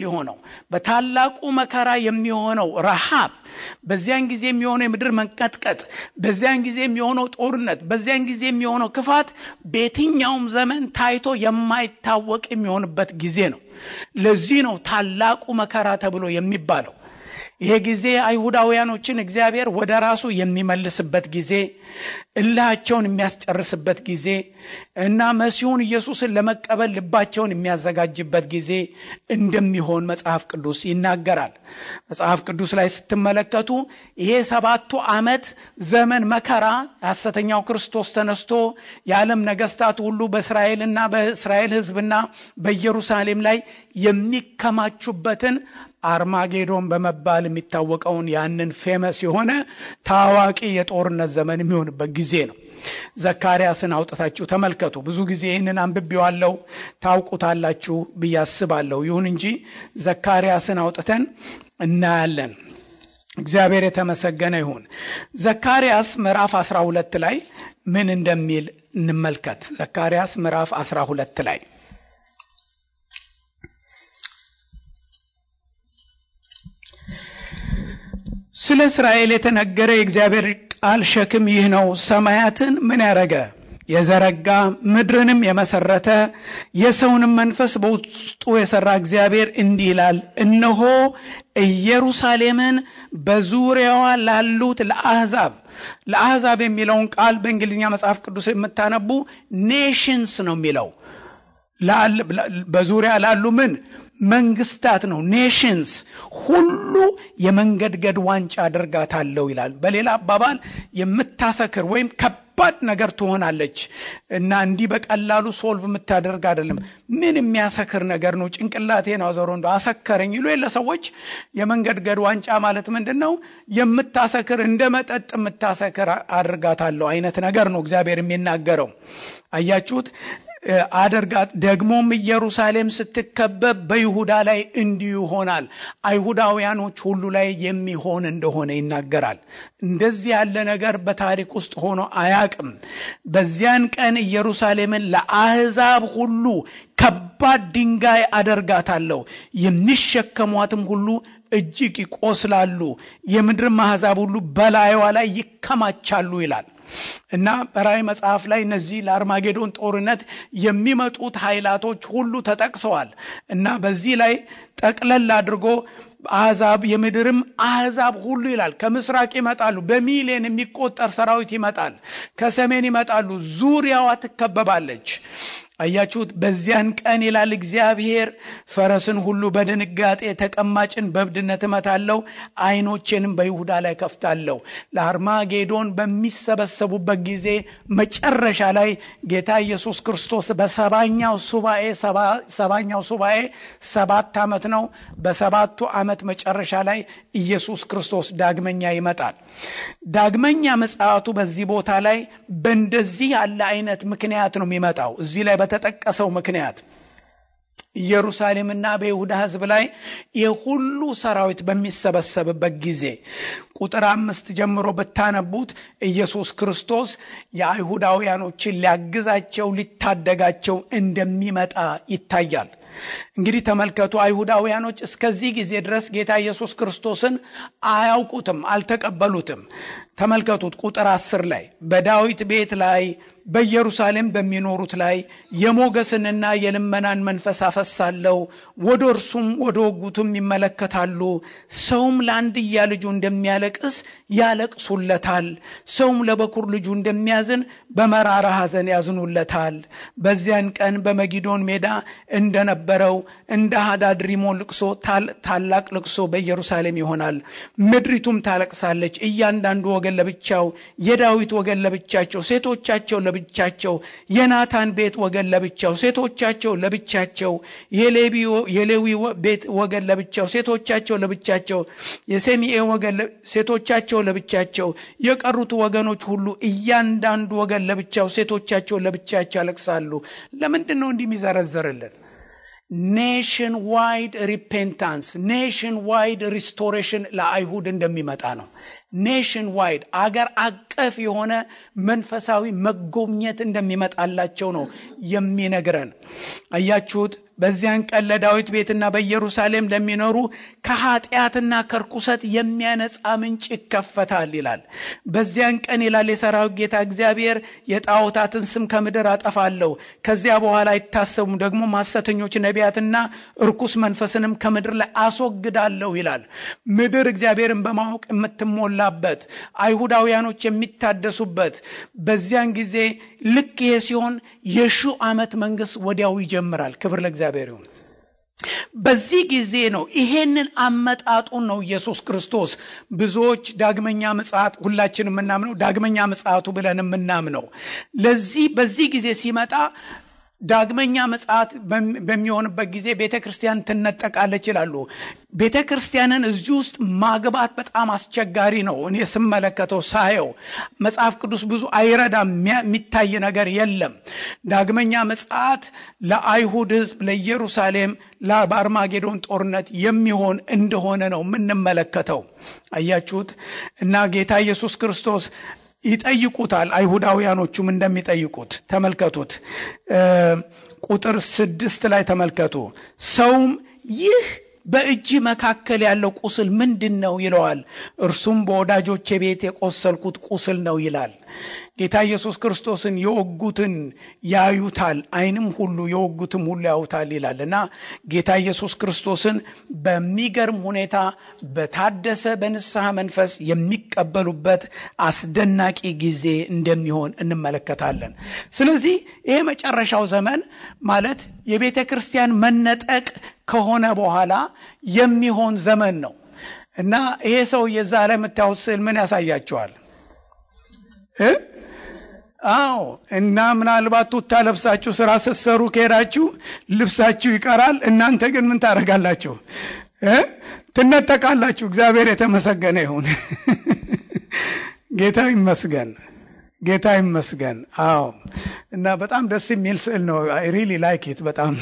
የሆነው በታላቁ መከራ የሚሆነው ረሃብ፣ በዚያን ጊዜ የሚሆነው የምድር መንቀጥቀጥ፣ በዚያን ጊዜ የሚሆነው ጦርነት፣ በዚያን ጊዜ የሚሆነው ክፋት በየትኛውም ዘመን ታይቶ የማይታወቅ የሚሆንበት ጊዜ ነው። ለዚህ ነው ታላቁ መከራ ተብሎ የሚባለው። ይሄ ጊዜ አይሁዳውያኖችን እግዚአብሔር ወደ ራሱ የሚመልስበት ጊዜ፣ እልሃቸውን የሚያስጨርስበት ጊዜ እና መሲሁን ኢየሱስን ለመቀበል ልባቸውን የሚያዘጋጅበት ጊዜ እንደሚሆን መጽሐፍ ቅዱስ ይናገራል። መጽሐፍ ቅዱስ ላይ ስትመለከቱ ይሄ 7 ዓመት ዘመን መከራ ሐሰተኛው ክርስቶስ ተነስቶ የዓለም ነገስታት ሁሉ በእስራኤልና በእስራኤል ሕዝብና በኢየሩሳሌም ላይ የሚከማቹበትን አርማጌዶን በመባል የሚታወቀውን ያንን ፌመስ የሆነ ታዋቂ የጦርነት ዘመን የሚሆንበት ጊዜ ነው። ዘካርያስን አውጥታችሁ ተመልከቱ። ብዙ ጊዜ ይህንን አንብቤዋለሁ፣ ታውቁታላችሁ ብዬ አስባለሁ። ይሁን እንጂ ዘካርያስን አውጥተን እናያለን። እግዚአብሔር የተመሰገነ ይሁን። ዘካርያስ ምዕራፍ 12 ላይ ምን እንደሚል እንመልከት። ዘካርያስ ምዕራፍ 12 ላይ ስለ እስራኤል የተነገረ የእግዚአብሔር ቃል ሸክም ይህ ነው። ሰማያትን ምን ያረገ? የዘረጋ፣ ምድርንም የመሰረተ፣ የሰውንም መንፈስ በውስጡ የሰራ እግዚአብሔር እንዲህ ይላል፣ እነሆ ኢየሩሳሌምን በዙሪያዋ ላሉት ለአሕዛብ የሚለውን ቃል በእንግሊዝኛ መጽሐፍ ቅዱስ የምታነቡ ኔሽንስ ነው የሚለው። በዙሪያ ላሉ ምን መንግስታት ነው። ኔሽንስ ሁሉ የመንገድገድ ዋንጫ አድርጋታለሁ ይላል። በሌላ አባባል የምታሰክር ወይም ከባድ ነገር ትሆናለች እና እንዲህ በቀላሉ ሶልቭ የምታደርግ አይደለም። ምን የሚያሰክር ነገር ነው? ጭንቅላቴን አዘሮ እንደው አሰከረኝ ይሉ የለ ሰዎች። የመንገድገድ ዋንጫ ማለት ምንድነው? የምታሰክር፣ እንደ መጠጥ የምታሰክር አድርጋታለሁ አይነት ነገር ነው እግዚአብሔር የሚናገረው። አያችሁት? አደርጋት። ደግሞም ኢየሩሳሌም ስትከበብ በይሁዳ ላይ እንዲሁ ይሆናል። አይሁዳውያኖች ሁሉ ላይ የሚሆን እንደሆነ ይናገራል። እንደዚህ ያለ ነገር በታሪክ ውስጥ ሆኖ አያቅም። በዚያን ቀን ኢየሩሳሌምን ለአሕዛብ ሁሉ ከባድ ድንጋይ አደርጋታለሁ፣ የሚሸከሟትም ሁሉ እጅግ ይቆስላሉ፣ የምድርም አሕዛብ ሁሉ በላይዋ ላይ ይከማቻሉ ይላል። እና በራእይ መጽሐፍ ላይ እነዚህ ለአርማጌዶን ጦርነት የሚመጡት ኃይላቶች ሁሉ ተጠቅሰዋል። እና በዚህ ላይ ጠቅለል አድርጎ አሕዛብ የምድርም አሕዛብ ሁሉ ይላል ከምስራቅ ይመጣሉ፣ በሚሊዮን የሚቆጠር ሰራዊት ይመጣል፣ ከሰሜን ይመጣሉ፣ ዙሪያዋ ትከበባለች። አያችሁት? በዚያን ቀን ይላል እግዚአብሔር ፈረስን ሁሉ በድንጋጤ ተቀማጭን በብድነት እመታለሁ፣ ዓይኖቼንም በይሁዳ ላይ ከፍታለሁ። ለአርማጌዶን በሚሰበሰቡበት ጊዜ መጨረሻ ላይ ጌታ ኢየሱስ ክርስቶስ በሰባኛው ሱባኤ 7 ዓመት ነው። በሰባቱ ዓመት መጨረሻ ላይ ኢየሱስ ክርስቶስ ዳግመኛ ይመጣል። ዳግመኛ ምጽአቱ በዚህ ቦታ ላይ በእንደዚህ ያለ አይነት ምክንያት ነው የሚመጣው። እዚህ ላይ በተጠቀሰው ምክንያት ኢየሩሳሌምና በይሁዳ ሕዝብ ላይ የሁሉ ሰራዊት በሚሰበሰብበት ጊዜ ቁጥር 5 ጀምሮ በታነቡት ኢየሱስ ክርስቶስ የአይሁዳውያኖችን ሊያግዛቸው ሊታደጋቸው እንደሚመጣ ይታያል። እንግዲህ ተመልከቱ፣ አይሁዳውያኖች እስከዚህ ጊዜ ድረስ ጌታ ኢየሱስ ክርስቶስን አያውቁትም፣ አልተቀበሉትም። ተመልከቱት ቁጥር 10 ላይ በዳዊት ቤት ላይ በኢየሩሳሌም በሚኖሩት ላይ የሞገስንና የልመናን መንፈስ አፈሳለሁ፣ ወደ እርሱም ወደ ወጉቱም ይመለከታሉ። ሰውም ለአንድያ ልጁ እንደሚያለቅስ ያለቅሱለታል፣ ሰውም ለበኩር ልጁ እንደሚያዝን በመራራ ሐዘን ያዝኑለታል። በዚያን ቀን በመጊዶን ሜዳ እንደነበረው እንደ ሃዳድ ሪሞን ልቅሶ ታላቅ ልቅሶ በኢየሩሳሌም ይሆናል። ምድሪቱም ታለቅሳለች፣ እያንዳንዱ ወገን ለብቻው፣ የዳዊት ወገን ለብቻቸው፣ ሴቶቻቸው ለብቻቸው፣ የናታን ቤት ወገን ለብቻው፣ ሴቶቻቸው ለብቻቸው፣ የሌዊ ቤት ወገን ለብቻው፣ ሴቶቻቸው ለብቻቸው፣ የሰሚኤ ወገን ሴቶቻቸው ለብቻቸው፣ የቀሩት ወገኖች ሁሉ እያንዳንዱ ወገን ለብቻው፣ ሴቶቻቸው ለብቻቸው ያለቅሳሉ። ለምንድን ነው እንዲህ የሚዘረዘርልን? ኔሽን ዋይድ ሪፔንታንስ፣ ኔሽን ዋይድ ሪስቶሬሽን ለአይሁድ እንደሚመጣ ነው። ኔሽን ዋይድ አገር አቀፍ የሆነ መንፈሳዊ መጎብኘት እንደሚመጣላቸው ነው የሚነግረን። አያችሁት? በዚያን ቀን ለዳዊት ቤትና በኢየሩሳሌም ለሚኖሩ ከኃጢአትና ከርኩሰት የሚያነጻ ምንጭ ይከፈታል ይላል። በዚያን ቀን ይላል የሰራዊት ጌታ እግዚአብሔር የጣዖታትን ስም ከምድር አጠፋለሁ፣ ከዚያ በኋላ አይታሰቡም፣ ደግሞ ሐሰተኞች ነቢያትና ርኩስ መንፈስንም ከምድር ላይ አስወግዳለሁ ይላል። ምድር እግዚአብሔርን በማወቅ የምትሞላበት፣ አይሁዳውያኖች የሚታደሱበት በዚያን ጊዜ ልክ ይሄ ሲሆን የ1000 ዓመት መንግስት ወዲያው ይጀምራል። ክብር ለእግዚአብሔር ይሁን። በዚህ ጊዜ ነው ይሄንን አመጣጡን ነው ኢየሱስ ክርስቶስ ብዙዎች ዳግመኛ ምጽአት ሁላችንም የምናምነው ዳግመኛ ምጽአቱ ብለን የምናምነው ለዚህ በዚህ ጊዜ ሲመጣ ዳግመኛ ምጽአት በሚሆንበት ጊዜ ቤተክርስቲያን ትነጠቃለች ይላሉ። ቤተክርስቲያንን እዚህ ውስጥ ማግባት በጣም አስቸጋሪ ነው። እኔ ስመለከተው ሳየው መጽሐፍ ቅዱስ ብዙ አይረዳም፣ የሚታይ ነገር የለም። ዳግመኛ ምጽአት ለአይሁድ ሕዝብ ለኢየሩሳሌም ለአርማጌዶን ጦርነት የሚሆን እንደሆነ ነው የምንመለከተው። አያችሁት? እና ጌታ ኢየሱስ ክርስቶስ ይጠይቁታል፣ አይሁዳውያኖቹም እንደሚጠይቁት ተመልከቱት። ቁጥር 6 ላይ ተመልከቱ። ሰውም ይህ በእጅ መካከል ያለው ቁስል ምንድነው ይለዋል። እርሱም በወዳጆቼ ቤት የቆሰልኩት ቁስል ነው ይላል። ጌታ ኢየሱስ ክርስቶስን የወጉትን ያዩታል፣ ዓይንም ሁሉ የወጉትም ሁሉ ያዩታል ይላልና ጌታ ኢየሱስ ክርስቶስን በሚገርም ሁኔታ በታደሰ በንስሐ መንፈስ የሚቀበሉበት አስደናቂ ጊዜ እንደሚሆን እንመለከታለን። ስለዚህ ይሄ መጨረሻው ዘመን ማለት የቤተ ክርስቲያን መነጠቅ ከሆነ በኋላ የሚሆን ዘመን ነው እና ይሄ ሰው የዛ ላይ የምታዩት ስዕል ምን ያሳያቸዋል? አዎ እና ምናልባት ቱታ ለብሳችሁ ስራ ስትሰሩ ከሄዳችሁ ልብሳችሁ ይቀራል። እናንተ ግን ምን ታደርጋላችሁ? ትነጠቃላችሁ። እግዚአብሔር የተመሰገነ ይሁን። ጌታ ይመስገን፣ ጌታ ይመስገን። አዎ እና በጣም ደስ የሚል ስዕል ነው። አይ ሪሊ ላይክ ኢት በጣም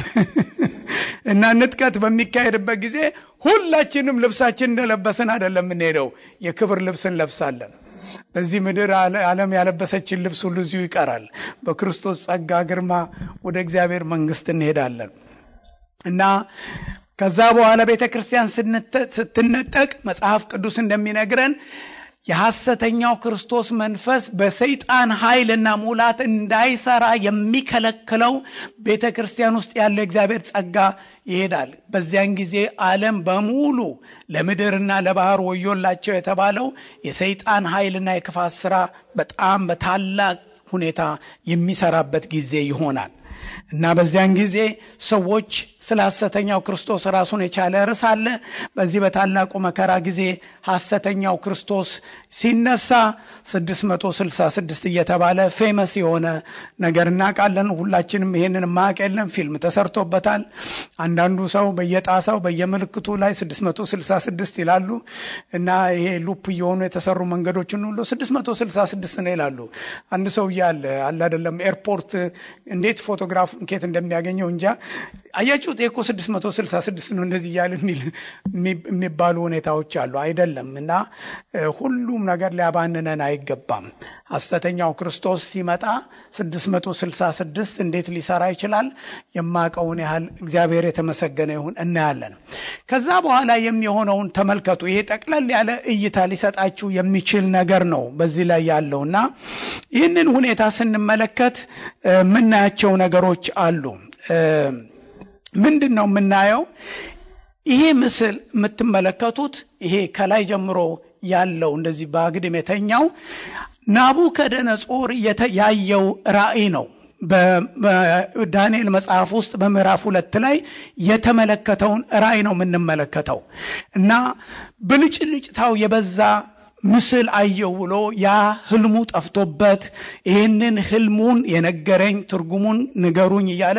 እና ንጥቀት በሚካሄድበት ጊዜ ሁላችንም ልብሳችን እንደለበሰን አይደለም የምንሄደው፣ የክብር ልብስን ለብሳለን። በዚህ ምድር ዓለም ያለበሰችን ልብስ ሁሉ እዚሁ ይቀራል። በክርስቶስ ጸጋ ግርማ ወደ እግዚአብሔር መንግስት እንሄዳለን እና ከዛ በኋላ ቤተክርስቲያን ስትነጠቅ መጽሐፍ ቅዱስ እንደሚነግረን የሐሰተኛው ክርስቶስ መንፈስ በሰይጣን ኃይልና ሙላት እንዳይሰራ የሚከለክለው ቤተክርስቲያን ውስጥ ያለው እግዚአብሔር ጸጋ ይሄዳል። በዚያን ጊዜ ዓለም በሙሉ ለምድርና ለባህር ወዮላቸው የተባለው የሰይጣን ኃይልና የክፋት ሥራ በጣም በታላቅ ሁኔታ የሚሰራበት ጊዜ ይሆናል እና በዚያን ጊዜ ሰዎች ስለ ሐሰተኛው ክርስቶስ ራሱን የቻለ ርዕስ አለ። በዚህ በታላቁ መከራ ጊዜ ሐሰተኛው ክርስቶስ ሲነሳ 666 እየተባለ ፌመስ የሆነ ነገር እናውቃለን። ሁላችንም ይሄንን ማወቅ የለም፣ ፊልም ተሰርቶበታል። አንዳንዱ ሰው በየጣሳው በየምልክቱ ላይ 666 ይላሉ እና ይሄ ሉፕ የሆኑ የተሰሩ መንገዶችን ሁሉ 666 ነው ይላሉ። አንድ ሰው ያለ አይደለም ኤርፖርት እንዴት ፎቶግራፍ እንኬት እንደሚያገኘው እንጃ። አያችሁት እኮ 666 ነው እንደዚህ ያለ የሚባሉ ሁኔታዎች አሉ አይደለም። እና ሁሉም ነገር ሊያባንነን አይገባም። ሐሰተኛው ክርስቶስ ሲመጣ 666 እንዴት ሊሰራ ይችላል? የማቀውን ያህል እግዚአብሔር የተመሰገነ ይሁን እናያለን። ከዛ በኋላ የሚሆነውን ተመልከቱ። ይሄ ጠቅለል ያለ እይታ ሊሰጣችሁ የሚችል ነገር ነው በዚህ ላይ ያለውና ይህንን ሁኔታ ስንመለከት ምናያቸው ነገሮች አሉ። ምንድነው የምናየው? ይሄ ምስል የምትመለከቱት ይሄ ከላይ ጀምሮ ያለው እንደዚህ በአግድም የተኛው ናቡከደነጾር ያየው ራእይ ነው። በዳንኤል መጽሐፍ ውስጥ በምዕራፍ 2 ላይ የተመለከተውን ራእይ ነው የምንመለከተው እና ብልጭልጭታው የበዛ ምስል አየው ብሎ ያ ህልሙ ጠፍቶበት ይህንን ህልሙን የነገረኝ ትርጉሙን ንገሩኝ እያለ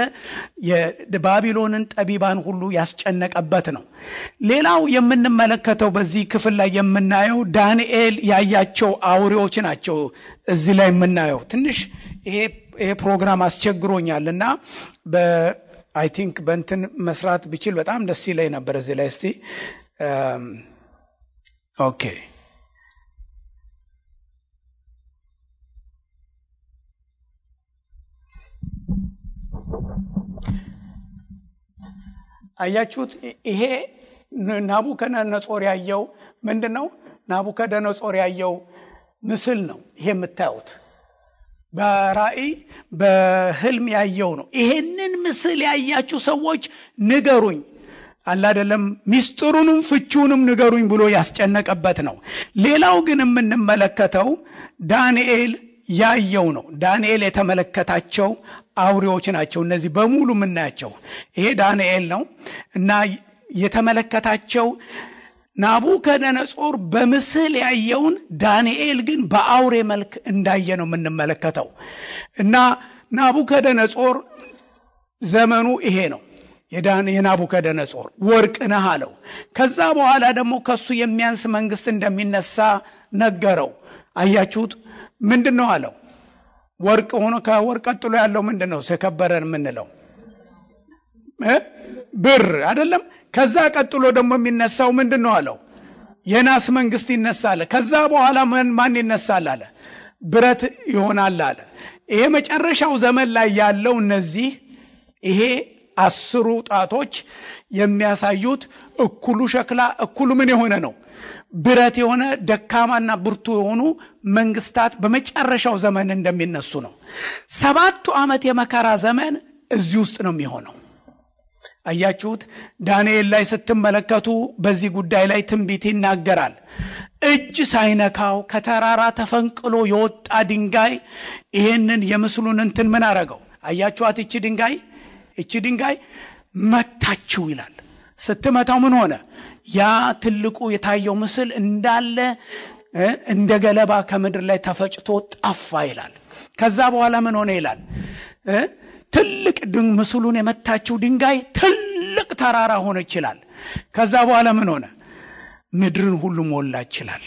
የባቢሎንን ጠቢባን ሁሉ ያስጨነቀበት ነው። ሌላው የምንመለከተው በዚህ ክፍል ላይ የምናየው ዳንኤል ያያቸው አውሬዎች ናቸው። እዚህ ላይ የምናየው ትንሽ ይሄ ፕሮግራም አስቸግሮኛልና አይ ቲንክ በእንትን መስራት ብችል በጣም ደስ ይለኝ ነበር። እዚህ ላይ እስቲ ኦኬ አያችሁት? ይሄ ናቡከደነጾር ያየው ምንድነው? ናቡከደነጾር ያየው ምስል ነው። ይሄ የምታዩት በራእይ በህልም ያየው ነው። ይሄንን ምስል ያያችሁ ሰዎች ንገሩኝ አይደለም ሚስጥሩንም ፍቹንም ንገሩኝ ብሎ ያስጨነቀበት ነው። ሌላው ግን የምንመለከተው ዳንኤል ያየው ነው። ዳንኤል የተመለከታቸው አውሬዎች ናቸው እነዚህ በሙሉ የምናያቸው። ይሄ ዳንኤል ነው እና የተመለከታቸው ናቡከደነጾር በምስል ያየውን ዳንኤል ግን በአውሬ መልክ እንዳየ ነው የምንመለከተው። እና ናቡከደነጾር ዘመኑ ይሄ ነው። የናቡከደነጾር ወርቅ ነህ አለው። ከዛ በኋላ ደግሞ ከሱ የሚያንስ መንግስት እንደሚነሳ ነገረው። አያችሁት? ምንድነው አለው? ወርቅ ሆኖ ከወርቅ ቀጥሎ ያለው ምንድነው? የከበረን የምንለው ብር አይደለም። ከዛ ቀጥሎ ደግሞ የሚነሳው ምንድነው አለው? የናስ መንግስት ይነሳል። ከዛ በኋላ ማን ይነሳል አለ? ብረት ይሆናል አለ። ይሄ መጨረሻው ዘመን ላይ ያለው እነዚህ ይሄ 10 ጣቶች የሚያሳዩት እኩሉ ሸክላ እኩሉ ምን የሆነ ነው? ብረት የሆነ ደካማና ብርቱ የሆኑ መንግስታት በመጨረሻው ዘመን እንደሚነሱ ነው። 7 ዓመት የመከራ ዘመን እዚህ ውስጥ ነው የሚሆነው። አያችሁት? ዳንኤል ላይ ስትመለከቱ በዚህ ጉዳይ ላይ ትንቢት ይናገራል። እጅ ሳይነካው ከተራራ ተፈንቅሎ የወጣ ድንጋይ ይሄንን የምስሉን እንትን ምን አረገው? አያችኋት? እቺ ድንጋይ መታችው ይላል። ስትመታው ምን ሆነ? ያ ትልቁ የታየው ምስል እንዳለ እንደ ገለባ ከምድር ላይ ተፈጭቶ ጠፋ ይላል። ከዛ በኋላ ምን ሆነ ይላል? ትልቅ ምስሉን የመታችው ድንጋይ ትልቅ ተራራ ሆነ ይችላል። ከዛ በኋላ ምን ሆነ? ምድርን ሁሉ ሞላ ይችላል።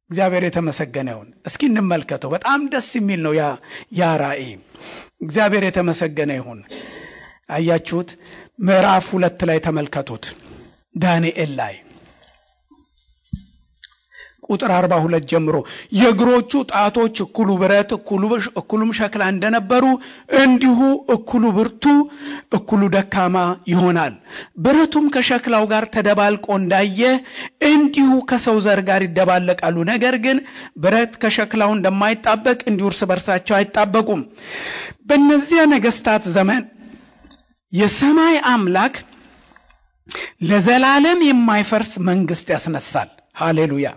እግዚአብሔር የተመሰገነ ይሁን። እስኪ እንመልከተው። በጣም ደስ የሚል ነው ያ ራእይ። እግዚአብሔር የተመሰገነ ይሁን። አያችሁት? ምዕራፍ 2 ላይ ተመልከቱት። ዳንኤል ላይ ቁጥር 42 ጀምሮ የእግሮቹ ጣቶች እኩሉ ብረት እኩሉም ሸክላ እንደነበሩ እንዲሁ እኩሉ ብርቱ እኩሉ ደካማ ይሆናል። ብረቱም ከሸክላው ጋር ተደባልቆ እንዳየ እንዲሁ ከሰው ዘር ጋር ይደባለቃሉ። ነገር ግን ብረት ከሸክላው እንደማይጣበቅ እንዲሁ እርስ በርሳቸው አይጣበቁም። በእነዚያ ነገስታት ዘመን የሰማይ አምላክ ለዘላለም የማይፈርስ መንግስት ያስነሳል። ሃሌሉያ!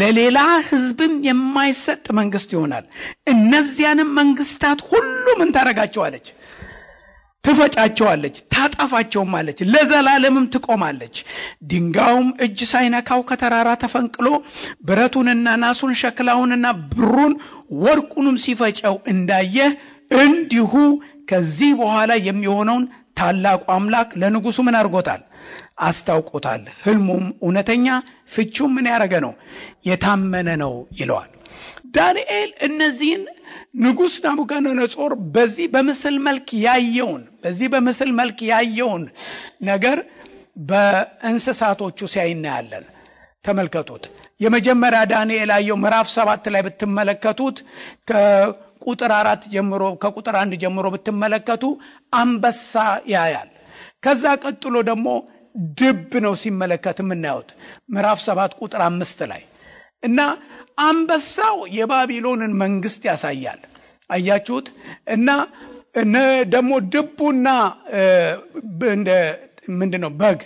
ለሌላ ህዝብም የማይሰጥ መንግስት ይሆናል። እነዚያንም መንግስታት ሁሉ ምን ታረጋቸዋለች? ትፈጫቸዋለች፣ ታጠፋቸውማለች፣ ለዘላለምም ትቆማለች። ድንጋዩም እጅ ሳይነካው ከተራራ ተፈንቅሎ ብረቱንና ናሱን ሸክላውንና ብሩን ወርቁንም ሲፈጨው እንዳየ እንዲሁ ከዚህ በኋላ የሚሆነውን ታላቁ አምላክ ለንጉሱ ምን አድርጎታል? አስታውቆታል። ህልሙም እውነተኛ ፍቺውም ምን ያደረገ ነው? የታመነ ነው ይለዋል። ዳንኤል እነዚህን ንጉስ ናቡከደነጾር በዚህ በምስል መልክ ያየውን ነገር በእንስሳቶቹ ሲያይናያለን። ተመልከቱት። የመጀመሪያ ዳንኤል ያየው ምዕራፍ 7 ላይ ብትመለከቱት ከቁጥር 4 ጀምሮ ከቁጥር 1 ጀምሮ ብትመለከቱ አንበሳ ያያል። ከዛ ቀጥሎ ደግሞ ድብ ነው ሲመለከት የምናየው ምዕራፍ 7 ቁጥር 5 ላይ እና አንበሳው የባቢሎንን መንግስት ያሳያል። አያችሁት? እና ደግሞ ድቡና እንደ ምንድነው በግ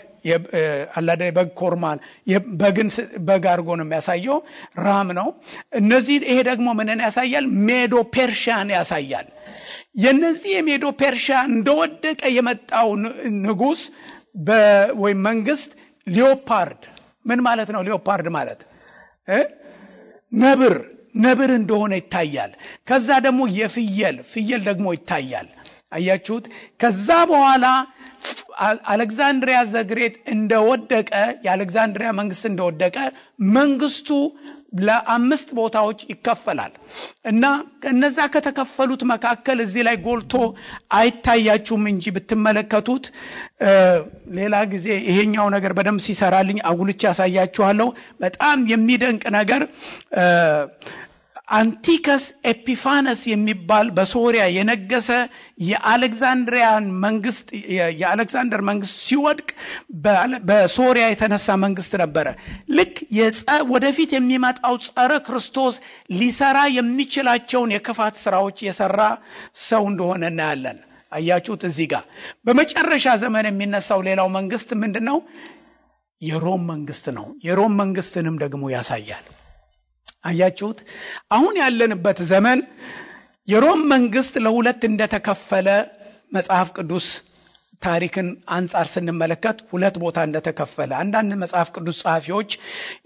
አላደ በግ ኮርማን በግ አርጎ ነው የሚያሳየው። ራም ነው። እነዚህ ይሄ ደግሞ ምንን ያሳያል? ሜዶ ፐርሺያን ያሳያል። የነዚህ የሜዶ ፐርሺያ እንደወደቀ የመጣው ንጉስ ወይ መንግስት ሊዮፓርድ ምን ማለት ነው? ሊዮፓርድ ማለት ነብር እንደሆነ ይታያል። ከዛ ደግሞ ፍየል ደግሞ ይታያል። አያችሁት? ከዛ በኋላ አሌክዛንድሪያ ዘግሬት እንደወደቀ የአሌክዛንድሪያ መንግስት እንደወደቀ መንግስቱ ለአምስት ቦታዎች ይከፈላል እና ከነዛ ከተከፈሉት መካከል እዚህ ላይ ጎልቶ አይታያችሁም እንጂ ብትመለከቱት ሌላ ጊዜ ይሄኛው ነገር በደም ሲሰራልኝ አጉልቻ ያሳያችኋለሁ። በጣም የሚደንቅ ነገር አንቲከስ ኤፒፋነስ የሚባል በሶሪያ የነገሰ የአሌክዛንደር መንግስት ሲወድቅ በሶሪያ የተነሳ መንግስት ነበረ። ልክ ወደፊት የሚመጣው ጸረ ክርስቶስ ሊሰራ የሚችላቸውን የክፋት ስራዎች የሰራ ሰው እንደሆነ እናያለን። አያችሁት? እዚህ ጋር በመጨረሻ ዘመን የሚነሳው ሌላው መንግስት ምንድነው? የሮም መንግስት ነው። የሮም መንግስትንም ደግሞ ያሳያል። አያችሁት? አሁን ያለንበት ዘመን የሮም መንግስት ለሁለት እንደተከፈለ መጽሐፍ ቅዱስ ታሪክን አንጻር ስንመለከት ሁለት ቦታ እንደተከፈለ አንዳንድ መጽሐፍ ቅዱስ ጸሐፊዎች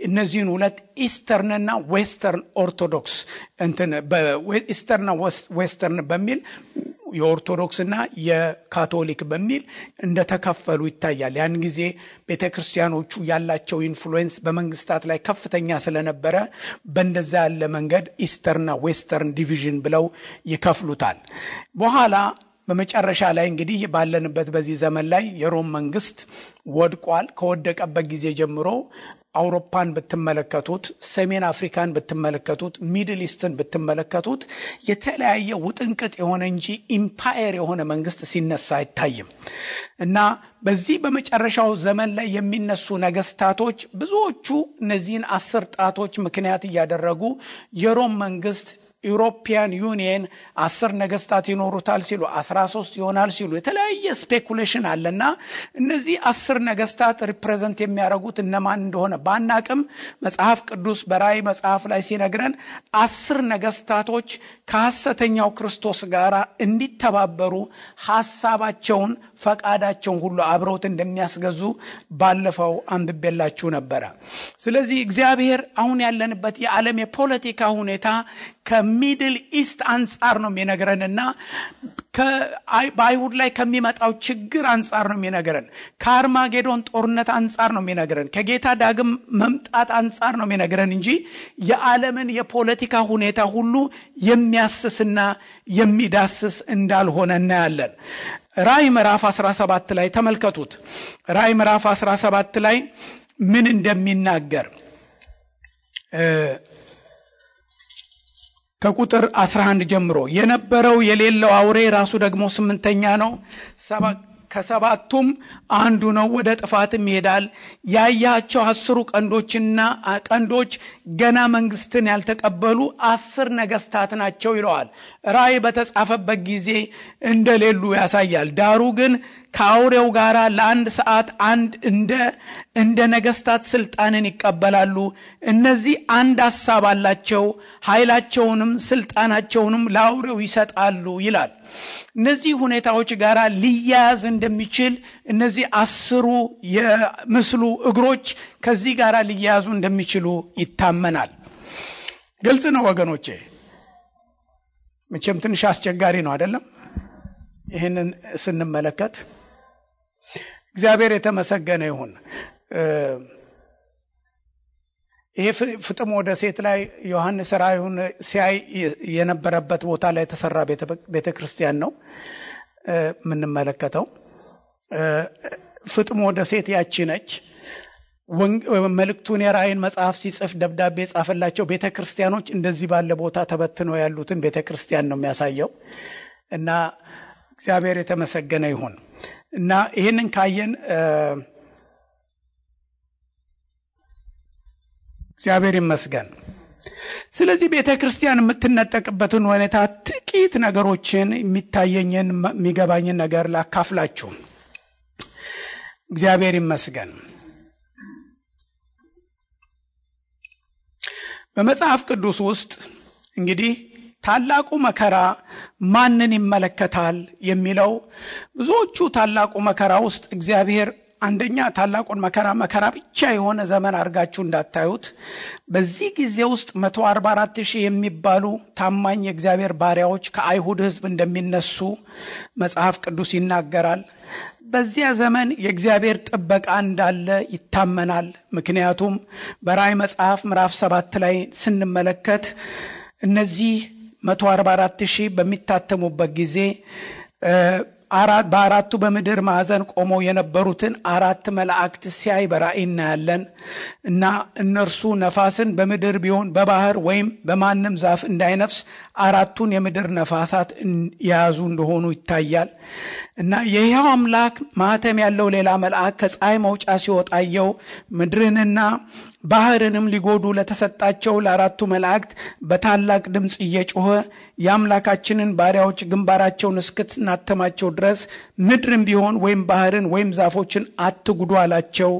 እነዚህን ሁለት ኢስተርንና ዌስተርን ኦርቶዶክስ ኢስተርንና ዌስተርን በሚል የኦርቶዶክስና የካቶሊክ በሚል እንደተከፈሉ ይታያል። ያን ጊዜ ቤተክርስቲያኖቹ ያላቸው ኢንፍሉዌንስ በመንግስታት ላይ ከፍተኛ ስለነበረ በእንደዛ ያለ መንገድ ኢስተርንና ዌስተርን ዲቪዥን ብለው ይከፍሉታል። በኋላ በመጨረሻ ላይ እንግዲህ ባለንበት በዚህ ዘመን ላይ የሮም መንግስት ወድቋል። ከወደቀበት ጊዜ ጀምሮ አውሮፓን ብትመለከቱት፣ ሰሜን አፍሪካን ብትመለከቱት፣ ሚድል ኢስትን ብትመለከቱት የተለያየ ውጥንቅጥ የሆነ እንጂ ኢምፓየር የሆነ መንግስት ሲነሳ አይታይም እና በዚህ በመጨረሻው ዘመን ላይ የሚነሱ ነገስታቶች ብዙዎቹ እነዚህን 10 ጣቶች ምክንያት እያደረጉ የሮም መንግስት ዩሮፒያን ዩኒየን 10 ነገስታት ይኖሩታል ሲሉ 13 ይሆናል ሲሉ የተለያየ ስፔኩሌሽን አለና እነዚህ 10 ነገስታት ሪፕሬዘንት የሚያደርጉት እነማን እንደሆነ ባናቅም መጽሐፍ ቅዱስ በራእይ መጽሐፍ ላይ ሲነግረን 10 ነገስታቶች ከሐሰተኛው ክርስቶስ ጋር እንዲተባበሩ ሐሳባቸውን ፈቃዳቸውን ሁሉ አብረውት እንደሚያስገዙ ባለፈው አንብቤላችሁ ነበር። ስለዚህ እግዚአብሔር አሁን ያለንበት የዓለም የፖለቲካ ሁኔታ ከሚድል ኢስት አንጻር ነው የሚነግረንና በአይሁድ ላይ ከሚመጣው ችግር አንጻር ነው የሚነግረን። ከአርማጌዶን ጦርነት አንጻር ነው የሚነግረን። ከጌታ ዳግም መምጣት አንጻር ነው የሚነግረን እንጂ የዓለምን የፖለቲካ ሁኔታ ሁሉ የሚያስስና የሚዳስስ እንዳልሆነ እናያለን። ራእይ ምዕራፍ 17 ላይ ተመልከቱት። ራእይ ምዕራፍ 17 ላይ ምን እንደሚናገር ከቁጥር 11 ጀምሮ የነበረው የሌለው አውሬ ራሱ ደግሞ 8ኛ ነው። ከሰባቱም አንዱ ነው፣ ወደ ጥፋትም ይሄዳል። ያያቸው 10 ቀንዶች ገና መንግስትን ያልተቀበሉ 10 ነገስታት ናቸው ይለዋል። ራእይ በተጻፈበት ጊዜ እንደሌሉ ያሳያል። ዳሩ ግን ከአውሬው ጋር ለአንድ ሰዓት እንደ ነገስታት ስልጣንን ይቀበላሉ። እነዚህ አንድ ሐሳብ አላቸው፣ ኃይላቸውንም ስልጣናቸውንም ለአውሬው ይሰጣሉ ይላል። እነዚህ ሁኔታዎች ጋር ሊያያዝ እንደሚችል እነዚህ 10 የምስሉ እግሮች ከዚህ ጋር ሊያያዙ እንደሚችሉ ይታመናል። ግልጽ ነው ወገኖቼ። መቼም ትንሽ አስቸጋሪ ነው አይደለም? ይህንን ስንመለከት እግዚአብሔር የተመሰገነ ይሁን። ይሄ ፍጥሞ ደሴት ላይ ዮሐንስ ራእዩን ሲያይ የነበረበት ቦታ ላይ የተሰራ ቤተክርስቲያን ነው የምንመለከተው። ፍጥሞ ደሴት ያቺ ነች። መልእክቱን የራእይን መጽሐፍ ሲጽፍ ደብዳቤ የጻፈላቸው ቤተክርስቲያኖች እንደዚህ ባለ ቦታ ተበትነው ያሉትን ቤተክርስቲያን ነው የሚያሳየው። እና እግዚአብሔር የተመሰገነ ይሁን። እና ይህንን ካየን እግዚአብሔር ይመስገን። ስለዚህ ቤተክርስቲያን የምትነጠቅበትን ሁኔታ ጥቂት ነገሮችን የሚታየኝን የሚገባኝን ነገር ላካፍላችሁ። እግዚአብሔር ይመስገን። በመጽሐፍ ቅዱስ ውስጥ እንግዲህ ታላቁ መከራ ማንን ይመለከታል የሚለው ብዙዎቹ ታላቁ መከራ ውስጥ እግዚአብሔር አንደኛ ታላቁን መከራ ብቻ የሆነ ዘመን አድርጋችሁ እንዳታዩት። በዚህ ጊዜ ውስጥ 144,000 የሚባሉ ታማኝ የእግዚአብሔር ባሪያዎች ከአይሁድ ሕዝብ እንደሚነሱ መጽሐፍ ቅዱስ ይናገራል። በዚያ ዘመን የእግዚአብሔር ጥበቃ እንዳለ ይታመናል። ምክንያቱም በራእይ መጽሐፍ ምዕራፍ 7 ላይ ስንመለከት እነዚህ 144,000 በሚታተሙበት ጊዜ በአራቱ በምድር ማዕዘን ቆመው የነበሩትን 4 መላእክት ሲያይ በራእይ እናያለን። እና እነርሱ ነፋስን በምድር ቢሆን በባህር ወይም በማንም ዛፍ እንዳይነፍስ 4ቱን የምድር ነፋሳት የያዙ እንደሆኑ ይታያል። እና የሕያው አምላክ ማህተም ያለው ሌላ መልአክ ከፀሐይ መውጫ ሲወጣየው ምድርንና ባህርንም ሊጎዱ ለተሰጣቸው ለ4ቱ መላእክት በታላቅ ድምፅ እየጮኸ የአምላካችንን ባሪያዎች ግንባራቸውን እስክትናተማቸው ድረስ ምድርን ቢሆን ወይም ባህርን ወይም ዛፎችን አትጉዱ አላቸው።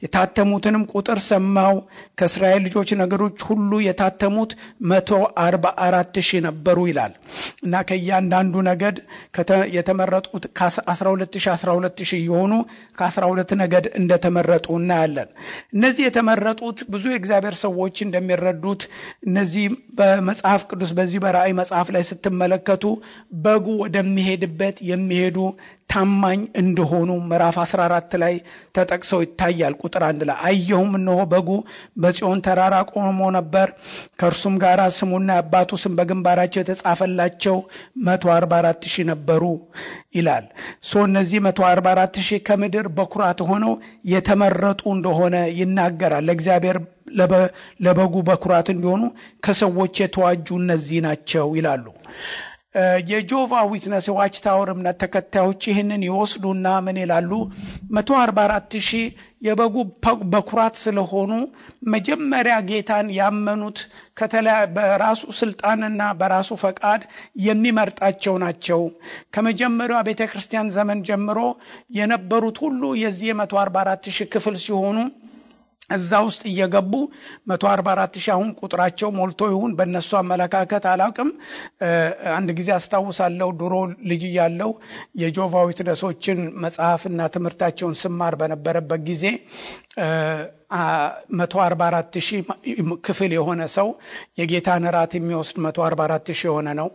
የታተሙትንም ቁጥር ሰማው። ከእስራኤል ልጆች ነገዶች ሁሉ የታተሙት 144,000 ነበሩ ይላል። እና ከእያንዳንዱ ነገድ የተመረጡት ከ12,000 የሆኑ ከ12 ነገድ እንደተመረጡ እናያለን። እነዚህ የተመረጡት ብዙ የእግዚአብሔር ሰዎች እንደሚረዱት እነዚህ በመጽሐፍ ቅዱስ በዚህ በራእይ መጽሐፍ ላይ ስትመለከቱ በጉ ወደሚሄድበት የሚሄዱ ታማኝ እንደሆኑ ምዕራፍ 14 ላይ ተጠቅሰው ይታያል። ቁጥር 1 ላይ አየሁም፣ እነሆ በጉ በጽዮን ተራራ ቆሞ ነበር፣ ከእርሱም ጋር ስሙና የአባቱ ስም በግንባራቸው የተጻፈላቸው 144,000 ነበሩ ይላል። እነዚህ 144,000 ከምድር በኩራት ሆነው የተመረጡ እንደሆነ ይናገራል። ለእግዚአብሔር ለበጉ በኩራት እንዲሆኑ ከሰዎች የተዋጁ እነዚህ ናቸው ይላሉ። የጆቫ ዊትነስ ዋች ታወር እምነት ተከታዮች ይህንን ይወስዱና ምን ይላሉ? 144,000 የበጉ በኩራት ስለሆኑ መጀመሪያ ጌታን ያመኑት በራሱ ስልጣንና በራሱ ፈቃድ የሚመርጣቸው ናቸው። ከመጀመሪያው ቤተክርስቲያን ዘመን ጀምሮ የነበሩት ሁሉ የዚህ 144,000 ክፍል ሲሆኑ እዛ ውስጥ እየገቡ 144,000 አሁን ቁጥራቸው ሞልቶ ይሁን በእነሱ አመለካከት አላውቅም። አንድ ጊዜ አስታውሳለሁ ድሮ ልጅ ያለው የጆቫ ዊትነሶችን መጽሐፍና ትምህርታቸውን ስማር በነበረበት ጊዜ 144,000 ክፍል የሆነ ሰው የጌታን እራት የሚወስድ 144,000 የሆነ ነው።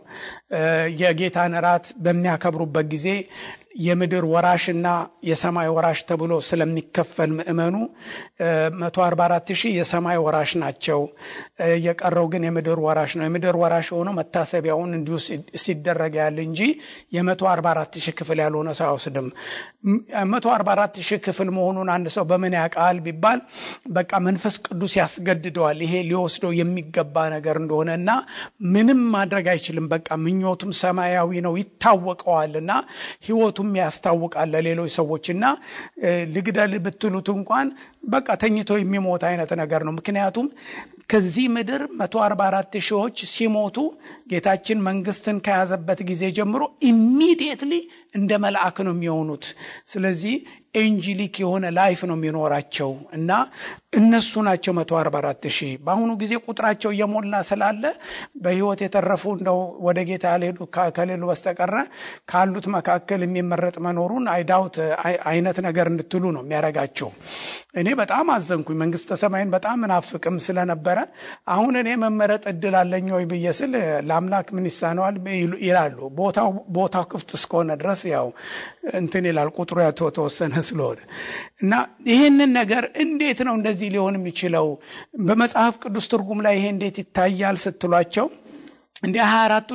የጌታን እራት በሚያከብሩበት ጊዜ የምድር ወራሽና የሰማይ ወራሽ ተብሎ ስለሚከፈል ምእመኑ 144,000 የሰማይ ወራሽ ናቸው። የቀረው ግን የምድር ወራሽ ነው። የምድር ወራሽ ሆኖ መታሰቢያውን እንዲሁ ሲደረግ ያለ እንጂ የ144,000 ክፍል ያልሆነ ሰው አይወስድም። 144,000 ክፍል መሆኑን አንድ ሰው በምን ያውቃል ቢባል በቃ መንፈስ ቅዱስ ያስገድደዋል። ይሄ ሊወስደው የሚገባ ነገር እንደሆነና ምንም ማድረግ አይችልም። በቃ ምኞቱም ሰማያዊ ነው ይታወቀዋልና ህይወቱም ያስታውቃል ለሌሎች ሰዎችና ልግደል ብትሉት እንኳን በቃ ተኝቶ የሚሞት አይነት ነገር ነው። ምክንያቱም ከዚህ ምድር 144,000 ሲሞቱ ጌታችን መንግስትን ከያዘበት ጊዜ ጀምሮ ኢሚዲየትሊ እንደ መልአክ ነው የሚሆኑት። ስለዚህ ኤንጂሊክ የሆነ ላይፍ ነው የሚኖራቸው እና እነሱ ናቸው 144,000። በአሁኑ ጊዜ ቁጥራቸው እየሞላ ስላለ በህይወት የተረፉ እንደው ወደ ጌታ ያልሄዱ ከሌሉ በስተቀር ካሉት መካከል የሚመረጥ መኖሩን አይዳውት አይነት ነገር እንድትሉ ነው የሚያረጋቸው። እኔ በጣም አዘንኩኝ። መንግስተ ሰማይን በጣም እናፍቅም ስለነበረ አሁን እኔ መመረጥ እድል አለኝ ወይ ብየስል ለአምላክ ምን ይሳነዋል ይላሉ። ቦታው ክፍት እስከሆነ ድረስ ያው እንትን ይላል ቁጥሩ ተወሰነ ስለሆነ እና ይሄንን ነገር እንዴት ነው እንደዚህ ሊሆን የሚችለው? በመጽሐፍ ቅዱስ ትርጉም ላይ ይሄ እንዴት ይታያል ስትሏቸው እንደ 24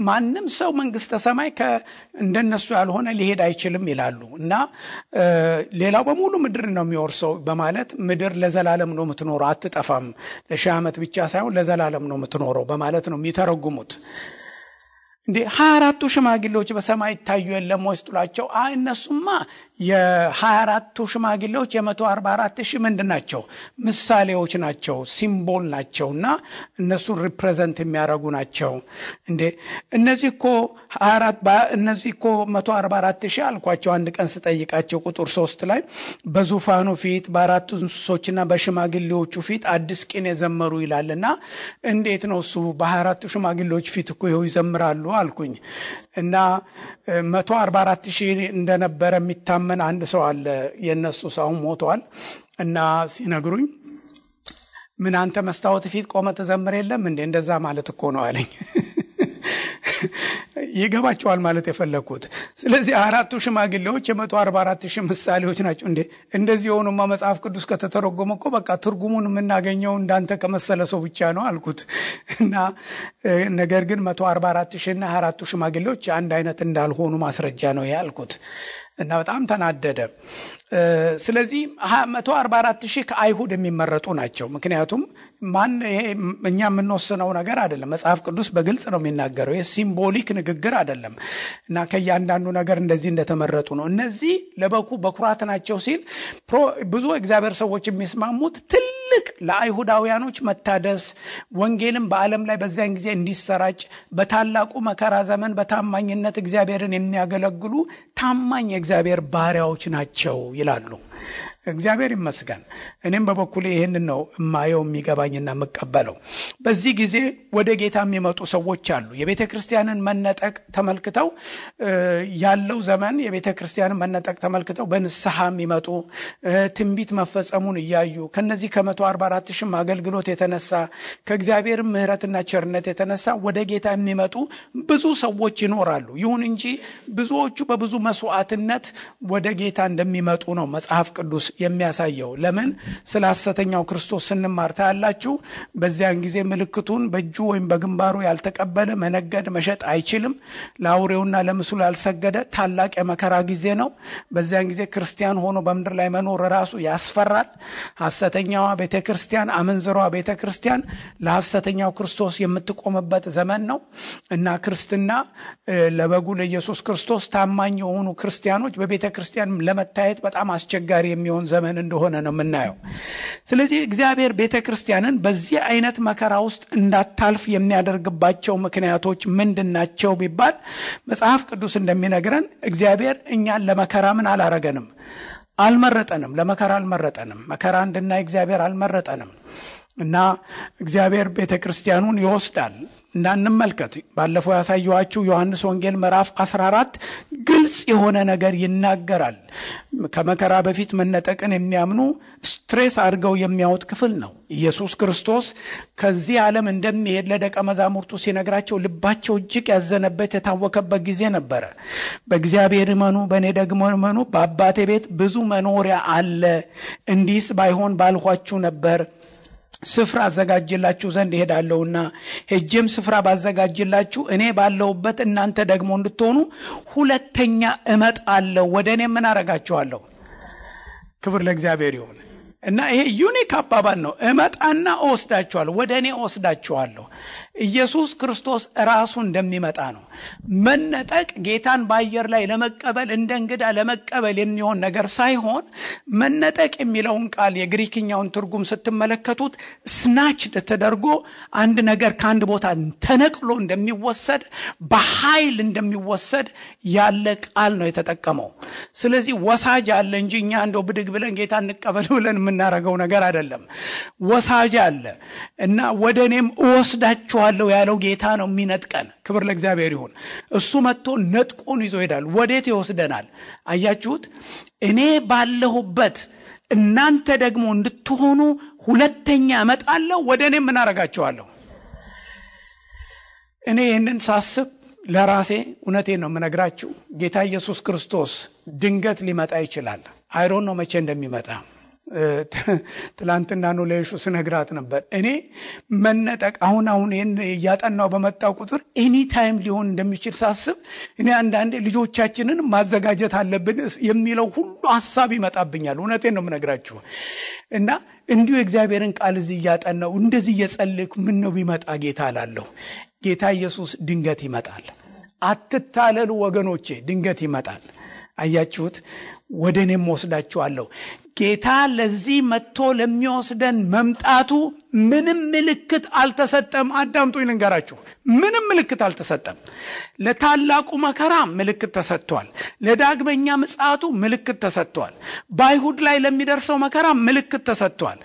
ማንም ሰው መንግስተ ሰማይ እንደነሱ ያልሆነ ሊሄድ አይችልም ይላሉ እና ሌላው በሙሉ ምድር ነው የሚወርሰው በማለት ምድር ለዘላለም ነው የምትኖረው አትጠፋም፣ ለሺህ ዓመት ብቻ ሳይሆን ለዘላለም ነው የምትኖረው በማለት ነው የሚተረጉሙት። እንዴ 24 ሽማግሌዎች በሰማይ ታዩ የለም ወስጥሏቸው? እነሱማ የ24 ሽማግሌዎች የ144,000 ምንድናቸው? ምሳሌዎች ናቸው፣ ሲምቦል ናቸውና እነሱን ሪፕሬዘንት የሚያደርጉ ናቸው። እንዴ እነዚህኮ 144,000 አልኳቸው። አንድ ቀን ስጠይቃቸው ቁጥር 3 ላይ በዙፋኑ ፊት በአራቱ እንስሶችና በሽማግሌዎቹ ፊት አዲስ ቅኔ ዘመሩ ይላልና እንዴት ነው እሱ በ24 ሽማግሌዎች ፊት እኮ ይኸው ይዘምራሉ አልኩኝ። እና 144,000 እንደነበረ የሚታመን አንድ ሰው አለ። የነሱ ሰው ሞቷል እና ሲነግሩኝ ምን አንተ መስታወት ፊት ቆመ ተዘምር የለም እንዴ? እንደዛ ማለት እኮ ነው አለኝ። ይገባቸዋል ማለት የፈለኩት። ስለዚህ አራቱ ሽማግሌዎች የ144,000 ምሳሌዎች ናቸው። እንዴ እንደዚህ ሆኖማ መጽሐፍ ቅዱስ ከተተረጎመ እኮ በቃ ትርጉሙን የምናገኘው እንዳንተ ከመሰለ ሰው ብቻ ነው አልኩት። እና ነገር ግን 144,000 እና አራቱ ሽማግሌዎች አንድ አይነት እንዳልሆኑ ማስረጃ ነው ያልኩት እና በጣም ተናደደ። ስለዚህ 144,000 ከአይሁድ የሚመረጡ ናቸው። ምክንያቱም እኛ የምንወስነው ነገር አይደለም። መጽሐፍ ቅዱስ በግልጽ ነው የሚናገረው። የሲምቦሊክ ንግግር አይደለም እና ከእያንዳንዱ ነገር እንደዚህ እንደተመረጡ ነው። እነዚህ በኩራት ናቸው ሲል ብዙ እግዚአብሔር ሰዎች የሚስማሙት ትልቅ ለአይሁዳውያኖች መታደስ ወንጌልም በዓለም ላይ በዚያን ጊዜ እንዲሰራጭ በታላቁ መከራ ዘመን በታማኝነት እግዚአብሔርን የሚያገለግሉ ታማኝ የእግዚአብሔር ባሪያዎች ናቸው ይላሉ። እግዚአብሔር ይመስገን። እኔም በበኩሌ ይሄንን ነው ማየው የሚገባኝና መቀበለው። በዚህ ጊዜ ወደ ጌታ የሚመጡ ሰዎች አሉ። የቤተክርስቲያንን መነጠቅ ተመልክተው ያለው ዘመን የቤተክርስቲያንን መነጠቅ ተመልክተው በንስሐ የሚመጡ ትንቢት መፈጸሙን እያዩ ከነዚህ ከ144,000 አገልግሎት የተነሳ ከእግዚአብሔር ምሕረትና ቸርነት የተነሳ ወደ ጌታ የሚመጡ ብዙ ሰዎች ይኖራሉ። ይሁን እንጂ ብዙዎቹ በብዙ መስዋዕትነት ወደ ጌታ እንደሚመጡ ነው መጽሐፍ ቅዱስ የሚያሳየው። ለምን? ስለ ሐሰተኛው ክርስቶስ ስንማር ታያላችሁ። በዚያን ጊዜ ምልክቱን በእጁ ወይም በግንባሩ ያልተቀበለ መነገድ መሸጥ አይችልም። ለአውሬውና ለምስሉ ያልሰገደ ታላቅ የመከራ ጊዜ ነው። በዚያን ጊዜ ክርስቲያን ሆኖ በምድር ላይ መኖር ራሱ ያስፈራል። ሐሰተኛዋ ቤተክርስቲያን፣ አመንዝሯ ቤተክርስቲያን ለሐሰተኛው ክርስቶስ የምትቆምበት ዘመን ነው እና ክርስትና ለበጉ ለኢየሱስ ክርስቶስ ታማኝ የሆኑ ክርስቲያኖች በቤተክርስቲያን ለመታየት በጣም አስቸጋሪ የሚሆን ዘመን እንደሆነ ነው የምናየው። ስለዚህ እግዚአብሔር ቤተክርስቲያንን በዚህ አይነት መከራ ውስጥ እንዳታልፍ የሚያደርግባቸው ምክንያቶች ምንድናቸው ቢባል መጽሐፍ ቅዱስ እንደሚነግረን እግዚአብሔር እኛን ለመከራ ምን አላረገንም? አልመረጠንም። ለመከራ አልመረጠንም። መከራ እንድናይ እግዚአብሔር አልመረጠንም እና እግዚአብሔር ቤተክርስቲያኑን ይወስዳል። እንዳንመልከት ባለፈው ያሳየኋችሁ ዮሐንስ ወንጌል ምዕራፍ 14 ግልጽ የሆነ ነገር ይናገራል። ከመከራ በፊት መነጠቅን የሚያምኑ ስትሬስ አድርገው የሚያወጥ ክፍል ነው። ኢየሱስ ክርስቶስ ከዚህ ዓለም እንደሚሄድ ለደቀ መዛሙርቱ ሲነግራቸው ልባቸው እጅግ ያዘነበት የታወከበት ጊዜ ነበረ። በእግዚአብሔር እመኑ፣ በእኔ ደግሞ እመኑ፣ በአባቴ ቤት ብዙ መኖሪያ አለ፣ እንዲህስ ባይሆን ባልኋችሁ ነበር። ስፍራ አዘጋጅላችሁ ዘንድ እሄዳለሁና ሄጄም ስፍራ ባዘጋጅላችሁ እኔ ባለሁበት እናንተ ደግሞ እንድትሆኑ ሁለተኛ እመጣለሁ፣ ወደ እኔ ምን አረጋችኋለሁ። ክብር ለእግዚአብሔር ይሁን። እና ይሄ ዩኒክ አባባል ነው። እመጣና እወስዳችኋለሁ፣ ወደ እኔ እወስዳችኋለሁ። ኢየሱስ ክርስቶስ ራሱ እንደሚመጣ ነው። መነጠቅ ጌታን በአየር ላይ ለመቀበል እንደ እንግዳ ለመቀበል የሚሆን ነገር ሳይሆን መነጠቅ የሚለውን ቃል የግሪክኛውን ትርጉም ስትመለከቱት ስናችድ ተደርጎ አንድ ነገር ከአንድ ቦታ ተነቅሎ እንደሚወሰድ በኃይል እንደሚወሰድ ያለ ቃል ነው የተጠቀመው። ስለዚህ ወሳጅ አለ እንጂ እኛ እንደው ብድግ ብለን ጌታ እንቀበል ብለን የምናረገው ነገር አይደለም። ወሳጅ አለ እና ወደ እኔም እወስዳችኋለሁ ያለው ጌታ ነው የሚነጥቀን። ክብር ለእግዚአብሔር ይሁን። እሱ መጥቶ ነጥቆን ይዞ ይሄዳል። ወዴት ይወስደናል? አያችሁት? እኔ ባለሁበት እናንተ ደግሞ እንድትሆኑ ሁለተኛ እመጣለሁ፣ ወደ እኔ ምን አረጋችኋለሁ። እኔ ይህንን ሳስብ ለራሴ እውነቴን ነው የምነግራችሁ። ጌታ ኢየሱስ ክርስቶስ ድንገት ሊመጣ ይችላል። አይሮን ነው መቼ እንደሚመጣ። ትላንትና ነው ለይሹ ስነግራት ነበር። እኔ መነጠቅ አሁን ይሄን ያጠናው በመጣው ቁጥር ኤኒ ታይም ሊሆን እንደሚችል ሳስብ እኔ አንዳንዴ ልጆቻችንን ማዘጋጀት አለብን የሚለው ሁሉ ሐሳብ ይመጣብኛል። እውነቴን ነው የምነግራችሁ። እና እንዲሁ እግዚአብሔርን ቃል እዚህ ያጠናው እንደዚህ እየጸለይኩ ምን ነው ቢመጣ ጌታ አላለሁ። ጌታ ኢየሱስ ድንገት ይመጣል። አትታለሉ ወገኖቼ፣ ድንገት ይመጣል። አያችሁት? ወደ እኔም ወስዳችኋለሁ። ጌታ ለዚህ መጥቶ ለሚወስደን መምጣቱ ምንም ምልክት አልተሰጠም። አዳምጡኝ ልንገራችሁ፣ ምንም ምልክት አልተሰጠም። ለታላቁ መከራ ምልክት ተሰጥቷል። ለዳግመኛ ምጽአቱ ምልክት ተሰጥቷል። በአይሁድ ላይ ለሚደርሰው መከራ ምልክት ተሰጥቷል።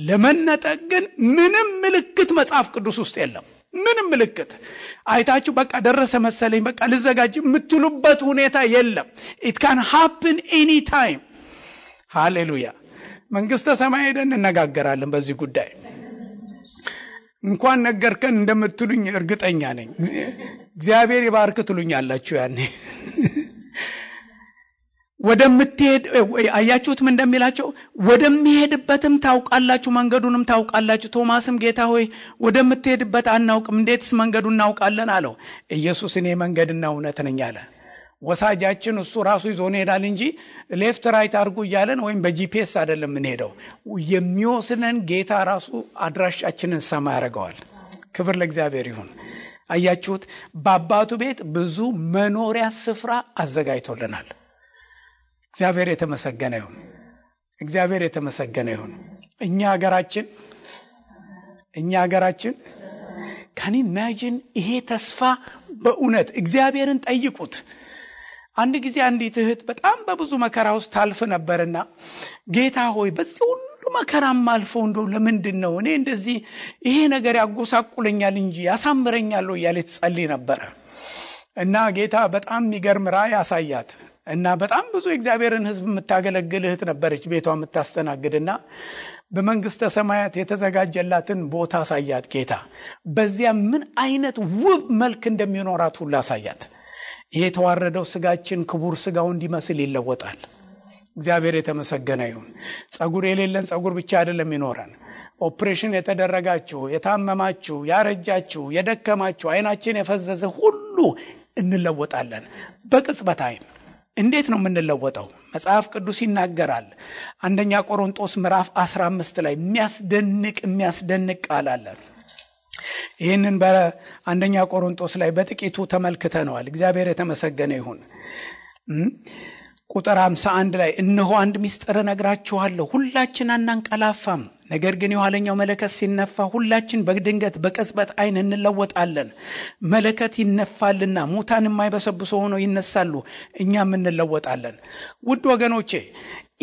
ለመነጠቅ ግን ምንም ምልክት መጽሐፍ ቅዱስ ውስጥ የለም። ምንም ምልክት አይታችሁ በቃ ደረሰ መሰለኝ በቃ ልዘጋጅ የምትሉበት ሁኔታ የለም። it can happen any time። ሃሌሉያ። መንግስተ ሰማይ ሄደን እንነጋገራለን በዚህ ጉዳይ። እንኳን ነገርከን እንደምትሉኝ እርግጠኛ ነኝ። እግዚአብሔር ይባርክ ትሉኛላችሁ ያኔ። ወደምትሄድ አያችሁት ምን እንደሚላቸው? ወደሚሄድበትም ታውቃላችሁ፣ መንገዱንም ታውቃላችሁ። ቶማስም ጌታ ሆይ ወደምትሄድበት አናውቅም፣ እንዴትስ መንገዱን እናውቃለን አለው። ኢየሱስ እኔ መንገድና እውነት ነኝ አለ። ወሳጃችን እሱ ራሱ ይዞን ሄዳል እንጂ ሌፍት ራይት አድርጉ እያለን ወይም በጂፒኤስ አይደለም የምንሄደው። የሚወስነን ጌታ ራሱ አድራሻችንን ሰማ ያደርገዋል። ክብር ለእግዚአብሔር ይሁን። አያችሁት? በአባቱ ቤት ብዙ መኖሪያ ስፍራ አዘጋጅቶልናል። እግዚአብሔር የተመሰገነ ይሁን። እግዚአብሔር የተመሰገነ ይሁን። እኛ ሀገራችን ካን ኢማጂን ይሄ ተስፋ በእውነት እግዚአብሔርን ጠይቁት። አንድ ጊዜ አንዲት እህት በጣም በብዙ መከራ ውስጥ ታልፍ ነበርና ጌታ ሆይ በዚህ ሁሉ መከራም አልፈው እንደው ለምንድን ነው እኔ እንደዚህ ይሄ ነገር ያጎሳቁለኛል እንጂ ያሳምረኛል እያለች ጸልይ ነበር። እና ጌታ በጣም የሚገርም ራእይ ያሳያት እና በጣም ብዙ የእግዚአብሔርን ሕዝብ የምታገለግል እህት ነበረች ቤቷ የምታስተናግድና በመንግስተ ሰማያት የተዘጋጀላትን ቦታ አሳያት ጌታ። በዚያ ምን አይነት ውብ መልክ እንደሚኖራት ሁሉ አሳያት። ይሄ የተዋረደው ስጋችን ክቡር ስጋው እንዲመስል ይለወጣል። እግዚአብሔር የተመሰገነ ይሁን። ጸጉር የሌለን ጸጉር ብቻ አይደለም ይኖራል። ኦፕሬሽን የተደረጋችሁ፣ የታመማችሁ፣ ያረጃችሁ፣ የደከማችሁ፣ አይናችን የፈዘዘ ሁሉ እንለወጣለን በቅጽበት አይን። እንዴት ነው የምንለወጠው? መጽሐፍ ቅዱስ ይናገራል። አንደኛ ቆሮንቶስ ምዕራፍ 15 ላይ የሚያስደንቅ ቃል አለ። ይህንን በአንደኛ ቆሮንቶስ ላይ በጥቂቱ ተመልክተነዋል። እግዚአብሔር የተመሰገነ ይሁን። ቁጥር 51 ላይ እነሆ አንድ ምስጢር እነግራችኋለሁ፣ ሁላችን አናንቀላፋም፣ ነገር ግን የኋለኛው መለከት ሲነፋ ሁላችን በድንገት በቅጽበት አይን እንለወጣለን። መለከት ይነፋልና ሙታን የማይበሰብሱ ሆነው ይነሳሉ፣ እኛም እንለወጣለን። ውድ ወገኖቼ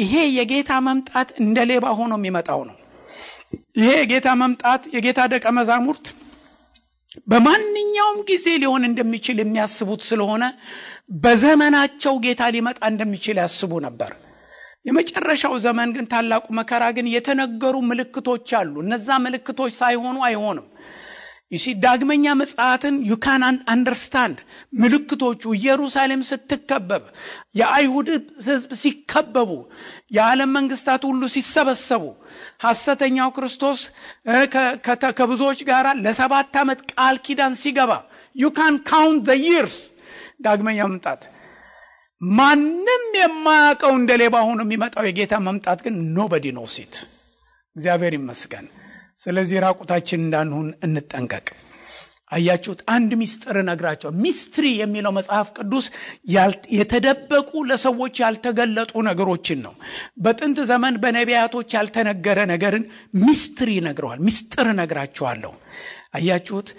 ይሄ የጌታ መምጣት እንደ ሌባ ሆኖ የሚመጣው ነው። ይሄ የጌታ መምጣት የጌታ ደቀ መዛሙርት በማንኛውም ጊዜ ሊሆን እንደሚችል የሚያስቡት ስለሆነ በዘመናቸው ጌታ ሊመጣ እንደሚችል ያስቡ ነበር። የመጨረሻው ዘመን ግን ታላቁ መከራ ግን የተነገሩ ምልክቶች አሉ። እነዛ ምልክቶች ሳይሆኑ አይሆንም። ዳግመኛ ምጽአትን you can understand ምልክቶቹ ኢየሩሳሌም ስትከበብ፣ የአይሁድ ሕዝብ ሲከበቡ፣ የዓለም መንግስታት ሁሉ ሲሰበሰቡ፣ ሐሰተኛው ክርስቶስ ከብዙዎች ጋር ለ7 ዓመት ቃል ኪዳን ሲገባ you can count the years ዳግመኛ መምጣት ማንም የማያውቀው እንደ ሌባ ሆኖ የሚመጣው የጌታ መምጣት ግን nobody knows it። እግዚአብሔር ይመስገን። ስለዚህ ራቁታችን እንዳንሆን እንጠንቀቅ። አያችሁት? አንድ ሚስጥር ነግራቸው። ሚስትሪ የሚለው መጽሐፍ ቅዱስ የተደበቁ ለሰዎች ያልተገለጡ ነገሮችን ነው። በጥንት ዘመን በነቢያቶች ያልተነገረ ነገርን ሚስትሪ ነግረዋል። ሚስጥር ነግራቸዋለሁ። አያችሁት?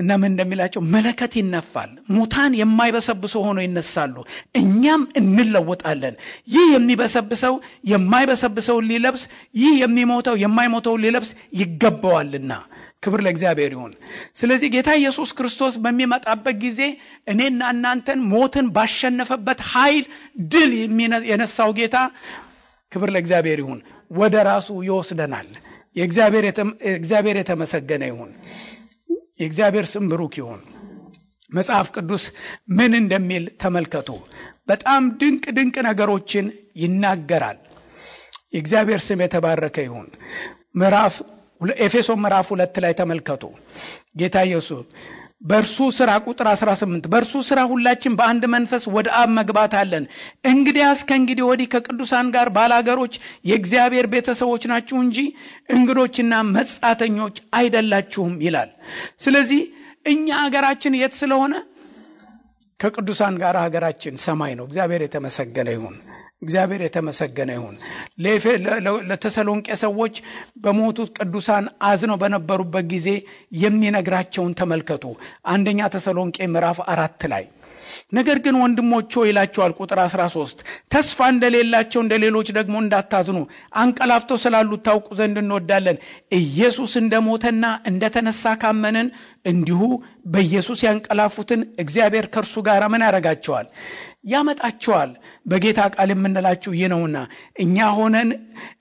እና ምን እንደሚላቸው መለከት ይነፋል፣ ሙታን የማይበሰብሱ ሆኖ ይነሳሉ፣ እኛም እንለወጣለን። ይህ የሚበሰብሰው የማይበሰብሰው ሊለብስ፣ ይህ የሚሞተው የማይሞተው ሊለብስ ይገባዋልና። ክብር ለእግዚአብሔር ይሁን። ስለዚህ ጌታ ኢየሱስ ክርስቶስ በሚመጣበት ጊዜ እኔና እናንተን ሞትን ባሸነፈበት ኃይል ድል የነሳው ጌታ ክብር ለእግዚአብሔር ይሁን ወደ ራሱ ይወስደናል። የእግዚአብሔር የተመሰገነ ይሁን። የእግዚአብሔር ስም ብሩክ ይሁን። መጽሐፍ ቅዱስ ምን እንደሚል ተመልከቱ። በጣም ድንቅ ነገሮችን ይናገራል። የእግዚአብሔር ስም የተባረከ ይሁን። ኤፌሶን ምዕራፍ 2 ላይ ተመልከቱ። ጌታ ኢየሱስ በእርሱ ሥራ ቁጥር 18 በእርሱ ሥራ ሁላችን በአንድ መንፈስ ወደ አብ መግባት አለን። እንግዲያስ ከእንግዲህ ወዲህ ከቅዱሳን ጋር ባላገሮች የእግዚአብሔር ቤተሰቦች ናችሁ እንጂ እንግዶችና መጻተኞች አይደላችሁም ይላል። ስለዚህ እኛ ሀገራችን የት ስለሆነ ከቅዱሳን ጋር ሀገራችን ሰማይ ነው። እግዚአብሔር የተመሰገነ ይሁን። እግዚአብሔር የተመሰገነ ይሁን። ለተሰሎንቄ ሰዎች በሞቱት ቅዱሳን አዝነው በነበሩበት ጊዜ የሚነግራቸውን ተመልከቱ። አንደኛ ተሰሎንቄ ምዕራፍ 4 ላይ ነገር ግን ወንድሞች ሆይ ይላቸዋል። ቁጥር 13 ተስፋ እንደሌላቸው እንደሌሎች ደግሞ እንዳታዝኑ አንቀላፍተው ስላሉት ታውቁ ዘንድ እንወዳለን። ኢየሱስ እንደሞተና እንደተነሳ ካመንን እንዲሁ በኢየሱስ ያንቀላፉትን እግዚአብሔር ከእርሱ ጋር ምን ያደርጋቸዋል? ያመጣቸዋል። በጌታ ቃል የምንላችሁ ይህ ነውና እኛ ሆነን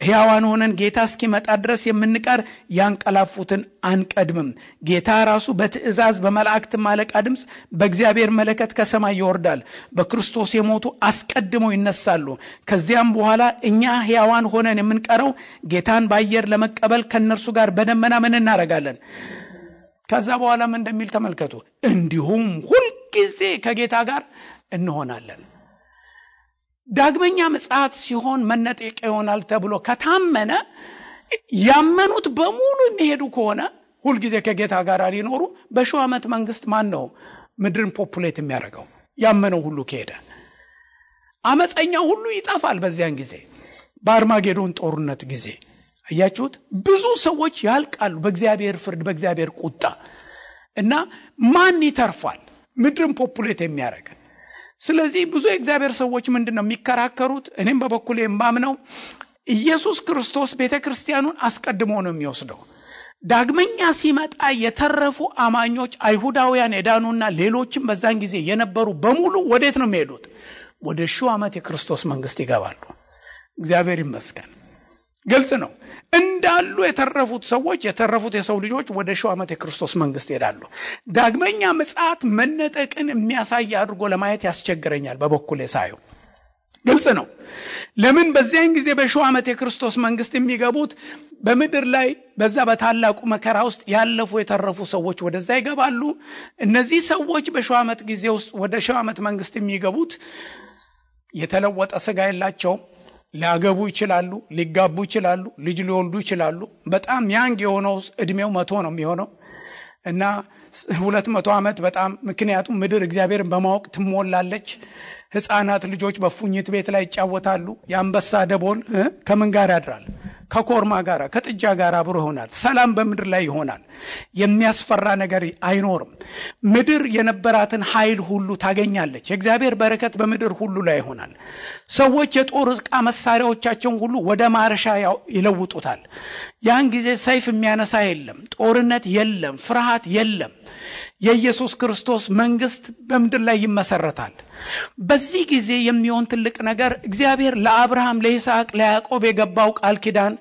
ሕያዋን ሆነን ጌታ እስኪመጣ ድረስ የምንቀር ያንቀላፉትን አንቀድምም። ጌታ ራሱ በትእዛዝ በመላእክት አለቃ ድምፅ በእግዚአብሔር መለከት ከሰማይ ይወርዳል። በክርስቶስ የሞቱ አስቀድመው ይነሳሉ። ከዚያም በኋላ እኛ ሕያዋን ሆነን የምንቀረው ጌታን በአየር ለመቀበል ከነርሱ ጋር በደመና ምን እናደርጋለን? ከዛ በኋላ ምን እንደሚል ተመልከቱ። እንዲሁም ሁልጊዜ ከጌታ ጋር እንሆናለን። ዳግመኛ ምጽአት ሲሆን መነጠቅ ይሆናል ተብሎ ከታመነ ያመኑት በሙሉ የሚሄዱ ከሆነ ሁልጊዜ ከጌታ ጋር ሊኖሩ በሺው ዓመት መንግስት ማን ነው ምድርን ፖፑሌት የሚያደርገው? ያመነው ሁሉ ከሄደ አመፀኛው ሁሉ ይጠፋል። በዚያን ጊዜ በአርማጌዶን ጦርነት ጊዜ አያችሁት? ብዙ ሰዎች ያልቃሉ በእግዚአብሔር ፍርድ፣ በእግዚአብሔር ቁጣ እና ማን ይተርፋል ምድርን ፖፑሌት የሚያደርግ? ስለዚህ ብዙ የእግዚአብሔር ሰዎች ምንድነው የሚከራከሩት? እኔም በበኩሌ የማምነው ኢየሱስ ክርስቶስ ቤተክርስቲያኑን አስቀድሞ ነው የሚወስደው። ዳግመኛ ሲመጣ የተረፉ አማኞች አይሁዳውያን የዳኑና ሌሎችም በዛን ጊዜ የነበሩ በሙሉ ወዴት ነው የሚሄዱት? ወደ ሺው ዓመት የክርስቶስ መንግስት ይገባሉ። እግዚአብሔር ይመስገን። ግልጽ ነው። እንዳሉ የተረፉት ሰዎች የተረፉት የሰው ልጆች ወደ ሺው ዓመት የክርስቶስ መንግስት ይሄዳሉ። ዳግመኛ ምጽአት መነጠቅን የሚያሳይ አድርጎ ለማየት ያስቸግረኛል በበኩሌ ሳየው። ግልጽ ነው። ለምን በዚያን ጊዜ በሺው ዓመት የክርስቶስ መንግስት የሚገቡት በምድር ላይ በዛ በታላቁ መከራ ውስጥ ያለፉ የተረፉ ሰዎች ወደዛ ይገባሉ። እነዚህ ሰዎች በሺው ዓመት ጊዜ ውስጥ ወደ ሺው ዓመት መንግስት የሚገቡት የተለወጠ ስጋ የላቸውም። ሊያገቡ ይችላሉ፣ ሊጋቡ ይችላሉ፣ ልጅ ሊወልዱ ይችላሉ። በጣም ያንግ የሆነው እድሜው 100 ነው የሚሆነው እና 200 ዓመት በጣም ምክንያቱም ምድር እግዚአብሔርን በማወቅ ትሞላለች። ሕፃናት ልጆች በፉኝት ቤት ላይ ይጫወታሉ። የአንበሳ ደቦል ከምን ጋር ያድራል? ከኮርማ ጋር ከጥጃ ጋር አብሮ ይሆናል። ሰላም በምድር ላይ ይሆናል። የሚያስፈራ ነገር አይኖርም። ምድር የነበራትን ኃይል ሁሉ ታገኛለች። የእግዚአብሔር በረከት በምድር ሁሉ ላይ ይሆናል። ሰዎች የጦር ዕቃ መሳሪያዎቻቸውን ሁሉ ወደ ማረሻ ይለውጡታል። ያን ጊዜ ሰይፍ የሚያነሳ የለም፣ ጦርነት የለም፣ ፍርሃት የለም። የኢየሱስ ክርስቶስ መንግስት በምድር ላይ ይመሰረታል። በዚህ ጊዜ የሚሆን ትልቅ ነገር እግዚአብሔር ለአብርሃም፣ ለይስሐቅ፣ ለያዕቆብ የገባው ቃል ኪዳን፣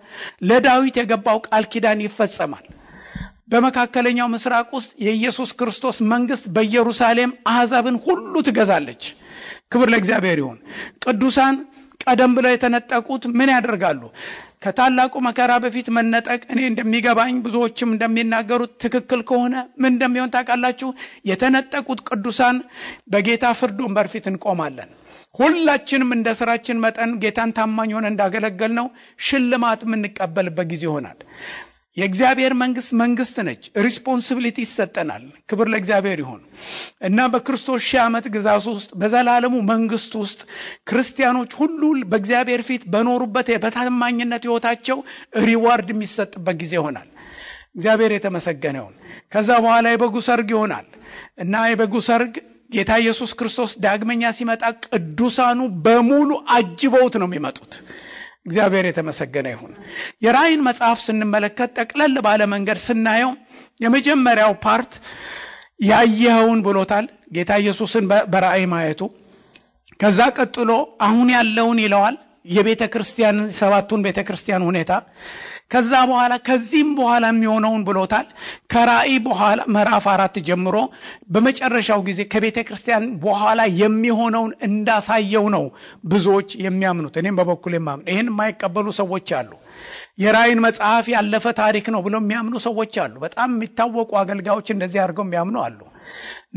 ለዳዊት የገባው ቃል ኪዳን ይፈጸማል። በመካከለኛው ምስራቅ ውስጥ የኢየሱስ ክርስቶስ መንግስት በኢየሩሳሌም አሕዛብን ሁሉ ትገዛለች። ክብር ለእግዚአብሔር ይሁን። ቅዱሳን ቀደም ብለው የተነጠቁት ምን ያደርጋሉ? ከታላቁ መከራ በፊት መነጠቅ እኔ እንደሚገባኝ ብዙዎችም እንደሚናገሩት ትክክል ከሆነ ምን እንደሚሆን ታውቃላችሁ? የተነጠቁት ቅዱሳን በጌታ ፍርድ ወንበር ፊት እንቆማለን። ሁላችንም እንደ ስራችን መጠን ጌታን ታማኝ ሆነን እንዳገለገልነው ሽልማት የምንቀበልበት ጊዜ ይሆናል። የእግዚአብሔር መንግስት ነች። ሪስፖንሲቢሊቲ ይሰጠናል። ክብር ለእግዚአብሔር ይሁን እና በክርስቶስ ሺህ ዓመት ግዛት ውስጥ በዘላለሙ መንግስት ውስጥ ክርስቲያኖች ሁሉ በእግዚአብሔር ፊት በኖሩበት በታማኝነት ህይወታቸው ሪዋርድ የሚሰጥበት ጊዜ ይሆናል። እግዚአብሔር የተመሰገነ ይሁን። ከዛ በኋላ የበጉ ሰርግ ይሆናል እና የበጉ ሰርግ ጌታ ኢየሱስ ክርስቶስ ዳግመኛ ሲመጣ ቅዱሳኑ በሙሉ አጅበውት ነው የሚመጡት። እግዚአብሔር የተመሰገነ ይሁን። የራእይን መጽሐፍ ስንመለከት ጠቅለል ባለ መንገድ ስናየው የመጀመሪያው ፓርት ያየኸውን ብሎታል ጌታ ኢየሱስን በራእይ ማየቱ። ከዛ ቀጥሎ አሁን ያለውን ይለዋል፣ የቤተ ክርስቲያን ሰባቱን ቤተ ክርስቲያን ሁኔታ። ከዛ በኋላ ከዚህም በኋላ የሚሆነውን ብሎታል። ከራእይ በኋላ ምዕራፍ 4 ጀምሮ በመጨረሻው ጊዜ ከቤተ ክርስቲያን በኋላ የሚሆነውን እንዳሳየው ነው ብዙዎች የሚያምኑት። እኔም በበኩሌ የማምነው ይሄን የማይቀበሉ ሰዎች አሉ። የራእይን መጽሐፍ ያለፈ ታሪክ ነው ብለው የሚያምኑ ሰዎች አሉ። በጣም የሚታወቁ አገልጋዮች እንደዚህ አድርገው የሚያምኑ አሉ።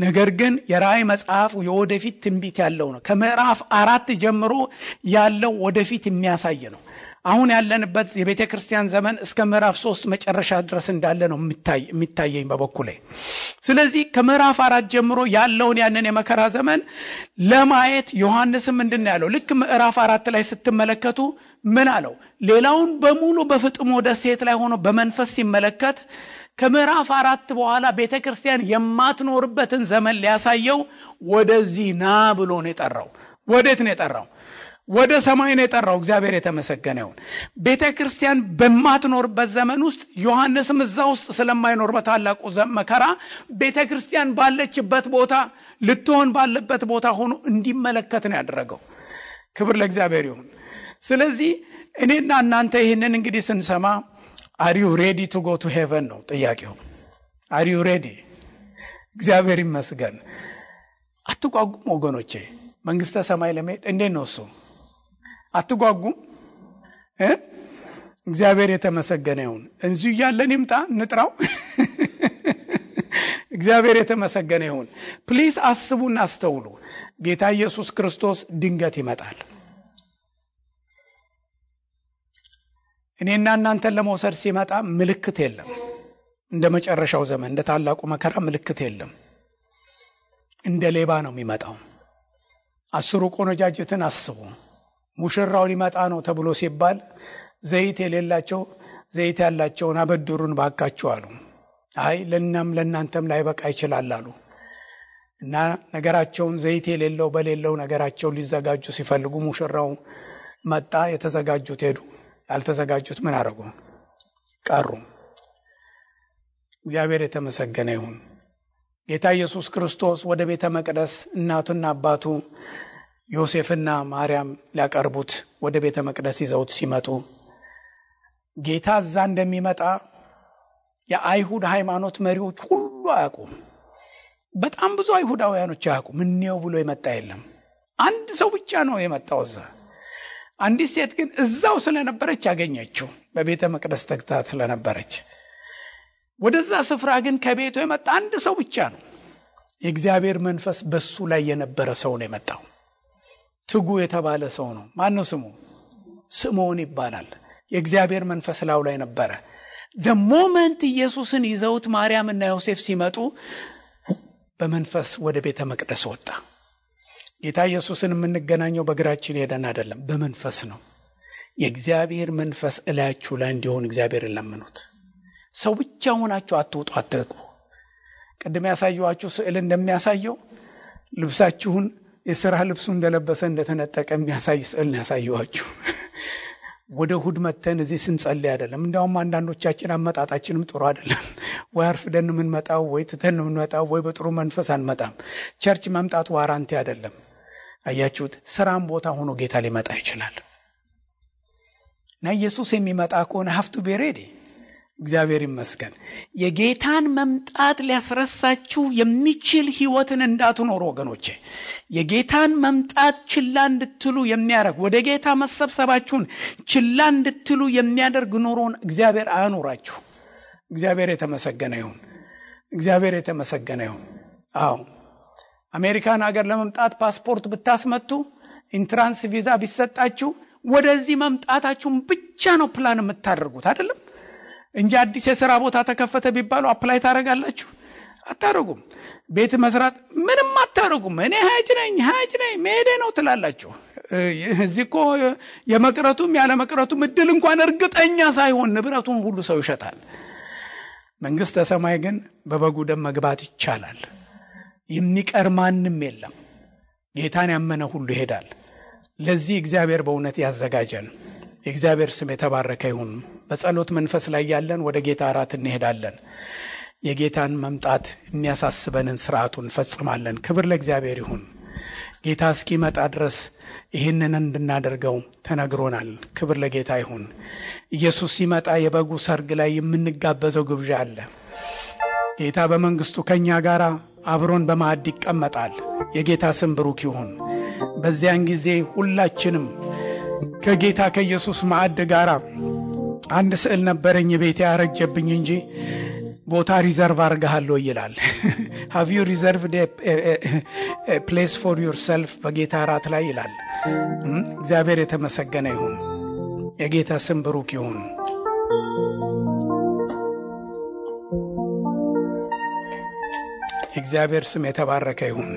ነገር ግን የራእይ መጽሐፍ የወደፊት ትንቢት ያለው ነው። ከምዕራፍ 4 ጀምሮ ያለው ወደፊት የሚያሳይ ነው። አሁን ያለንበት የቤተ ክርስቲያን ዘመን እስከ ምዕራፍ 3 መጨረሻ ድረስ እንዳለ ነው የሚታየኝ በበኩሌ። ስለዚህ ከምዕራፍ 4 ጀምሮ ያለውን ያንን የመከራ ዘመን ለማየት ዮሐንስም ምንድነው ያለው? ልክ ምዕራፍ 4 ላይ ስትመለከቱ ምን አለው? ሌላውን በሙሉ በፍጥሞ ደሴት ላይ ሆኖ በመንፈስ ሲመለከት ከምዕራፍ 4 በኋላ ቤተ ክርስቲያን የማትኖርበትን ዘመን ሊያሳየው ወደዚህ ና ብሎ ነው የጠራው። ወዴት ነው የጠራው? ወደ ሰማይ ነው የጠራው። እግዚአብሔር የተመሰገነ ይሁን። ቤተ ክርስቲያን በማትኖርበት ዘመን ውስጥ ዮሐንስም እዛ ውስጥ ስለማይኖር በታላቁ መከራ ቤተ ክርስቲያን ባለችበት ቦታ ልትሆን ባለበት ቦታ ሆኖ እንዲመለከት ነው ያደረገው። ክብር ለእግዚአብሔር ይሁን። ስለዚህ እኔና እናንተ ይህንን እንግዲህ ስንሰማ are you ready to go to heaven ነው ጥያቄው። are you ready? እግዚአብሔር ይመስገን። አትጓጉም ወገኖቼ፣ መንግስተ ሰማይ ለመሄድ እንዴት ነው እሱ? አትጓጉም? እግዚአብሔር የተመሰገነ ይሁን። እንዚሁ ያለን ይምጣ ንጥራው። እግዚአብሔር የተመሰገነ ይሁን። ፕሊዝ አስቡና አስተውሉ። ጌታ ኢየሱስ ክርስቶስ ድንገት ይመጣል። እኔና እናንተን ለመውሰድ ሲመጣ ምልክት የለም። እንደ መጨረሻው ዘመን እንደ ታላቁ መከራ ምልክት የለም። እንደ ሌባ ነው የሚመጣው። 10 ቆነጃጅትን አስቡ። ሙሽራው ሊመጣ ነው ተብሎ ሲባል ዘይት የሌላቸው ዘይት ያላቸውን አበድሩን ባካችሁ አሉ። አይ ለእናንተም ላይበቃ ይችላል አሉ እና ነገራቸውን ዘይት የሌለው በሌለው ነገራቸው ሊዘጋጁ ሲፈልጉ ሙሽራው መጣ። የተዘጋጁት ሄዱ፣ ያልተዘጋጁት ምን አደረጉ? ቀሩ። እግዚአብሔር የተመሰገነ ይሁን። ጌታ ኢየሱስ ክርስቶስ ወደ ቤተ መቅደስ እናቱና አባቱ ዮሴፍና ማርያም ሊያቀርቡት ወደ ቤተ መቅደስ ይዘውት ሲመጡ ጌታ እዛ እንደሚመጣ የአይሁድ ሃይማኖት መሪዎች ሁሉ አያውቁም። በጣም ብዙ አይሁዳውያኖች አያውቁም። ምንየው ብሎ የመጣ የለም። አንድ ሰው ብቻ ነው የመጣው እዛ። አንዲት ሴት ግን እዛው ስለነበረች ያገኘችው፣ በቤተ መቅደስ ተግታ ስለነበረች። ወደዛ ስፍራ ግን ከቤቱ የመጣ አንድ ሰው ብቻ ነው። የእግዚአብሔር መንፈስ በሱ ላይ የነበረ ሰው ነው የመጣው። ትጉ የተባለ ሰው ነው። ማን ነው ስሙ? ስምዖን ይባላል። የእግዚአብሔር መንፈስ ላው ላይ ነበረ። the moment ኢየሱስን ይዘውት ማርያምና ዮሴፍ ሲመጡ በመንፈስ ወደ ቤተ መቅደስ ወጣ። ጌታ ኢየሱስን የምንገናኘው በእግራችን ሄደን አይደለም፣ በመንፈስ ነው። የእግዚአብሔር መንፈስ እላያችሁ ላይ እንዲሆን እግዚአብሔርን ለምኑት። ሰው ብቻ ሆናችሁ አትውጡ፣ አትግቡ። ቅድም ያሳየኋችሁ ስዕል እንደሚያሳየው ልብሳችሁን የሥራ ልብሱ እንደለበሰ እንደተነጠቀ የሚያሳይ ስዕል ያሳየኋችሁ። ወደ እሑድ መተን እዚህ ስንጸልይ አይደለም። እንደውም አንዳንዶቻችን አመጣጣችንም ጥሩ አይደለም። ወይ አርፍደን የምንመጣው ወይ ትተን የምንመጣው ወይ በጥሩ መንፈስ አንመጣም። ቸርች መምጣት ዋራንቲ አይደለም። አያችሁት? ስራም ቦታ ሆኖ ጌታ ሊመጣ ይችላል እና ኢየሱስ የሚመጣ ከሆነ have to be ready። እግዚአብሔር ይመስገን። የጌታን መምጣት ሊያስረሳችሁ የሚችል ህይወትን እንዳትኖሩ ወገኖቼ። የጌታን መምጣት ችላ እንድትሉ የሚያደርግ ወደ ጌታ መሰብሰባችሁን ችላ እንድትሉ የሚያደርግ ኑሮን እግዚአብሔር አያኖራችሁ። እግዚአብሔር የተመሰገነ ይሁን። እግዚአብሔር የተመሰገነ ይሁን። አዎ አሜሪካን ሀገር ለመምጣት ፓስፖርት ብታስመጡ ኢንትራንስ ቪዛ ቢሰጣችሁ ወደዚህ መምጣታችሁን ብቻ ነው ፕላን የምታደርጉት አይደለም እንጂ አዲስ የሥራ ቦታ ተከፈተ ቢባሉ አፕላይ ታረጋላችሁ? አታረጉም። ቤት መስራት ምንም አታረጉም። እኔ ሀጅ ነኝ መሄዴ ነው ትላላችሁ። እዚህኮ የመቅረቱም ያለ መቅረቱም እድል እንኳን እርግጠኛ ሳይሆን ንብረቱን ሁሉ ሰው ይሸጣል። መንግስተ ሰማይ ግን በበጉ ደም መግባት ይቻላል። የሚቀር ማንም የለም። ጌታን ያመነ ሁሉ ይሄዳል። ለዚህ እግዚአብሔር በእውነት ያዘጋጀን። የእግዚአብሔር ስም የተባረከ ይሁን። በጸሎት መንፈስ ላይ ያለን ወደ ጌታ እራት እንሄዳለን። የጌታን መምጣት የሚያሳስበንን ሥርዓቱን ፈጽማለን። ክብር ለእግዚአብሔር ይሁን። ጌታ እስኪመጣ ድረስ ይህንን እንድናደርገው ተነግሮናል። ክብር ለጌታ ይሁን። ኢየሱስ ሲመጣ የበጉ ሰርግ ላይ የምንጋበዘው ግብዣ አለ። ጌታ በመንግስቱ ከኛ ጋር አብሮን በማዕድ ይቀመጣል። የጌታ ስም ብሩክ ይሁን። በዚያን ጊዜ ሁላችንም ከጌታ ከኢየሱስ ማዕድ ጋር አንድ ስዕል ነበረኝ ቤቴ ያረጀብኝ እንጂ ቦታ ሪዘርቭ አርጋለሁ ይላል። have you reserved a place for yourself በጌታ ራት ላይ ይላል። እግዚአብሔር የተመሰገነ ይሁን። የጌታ ስም ብሩክ ይሁን። እግዚአብሔር ስም የተባረከ ይሁን።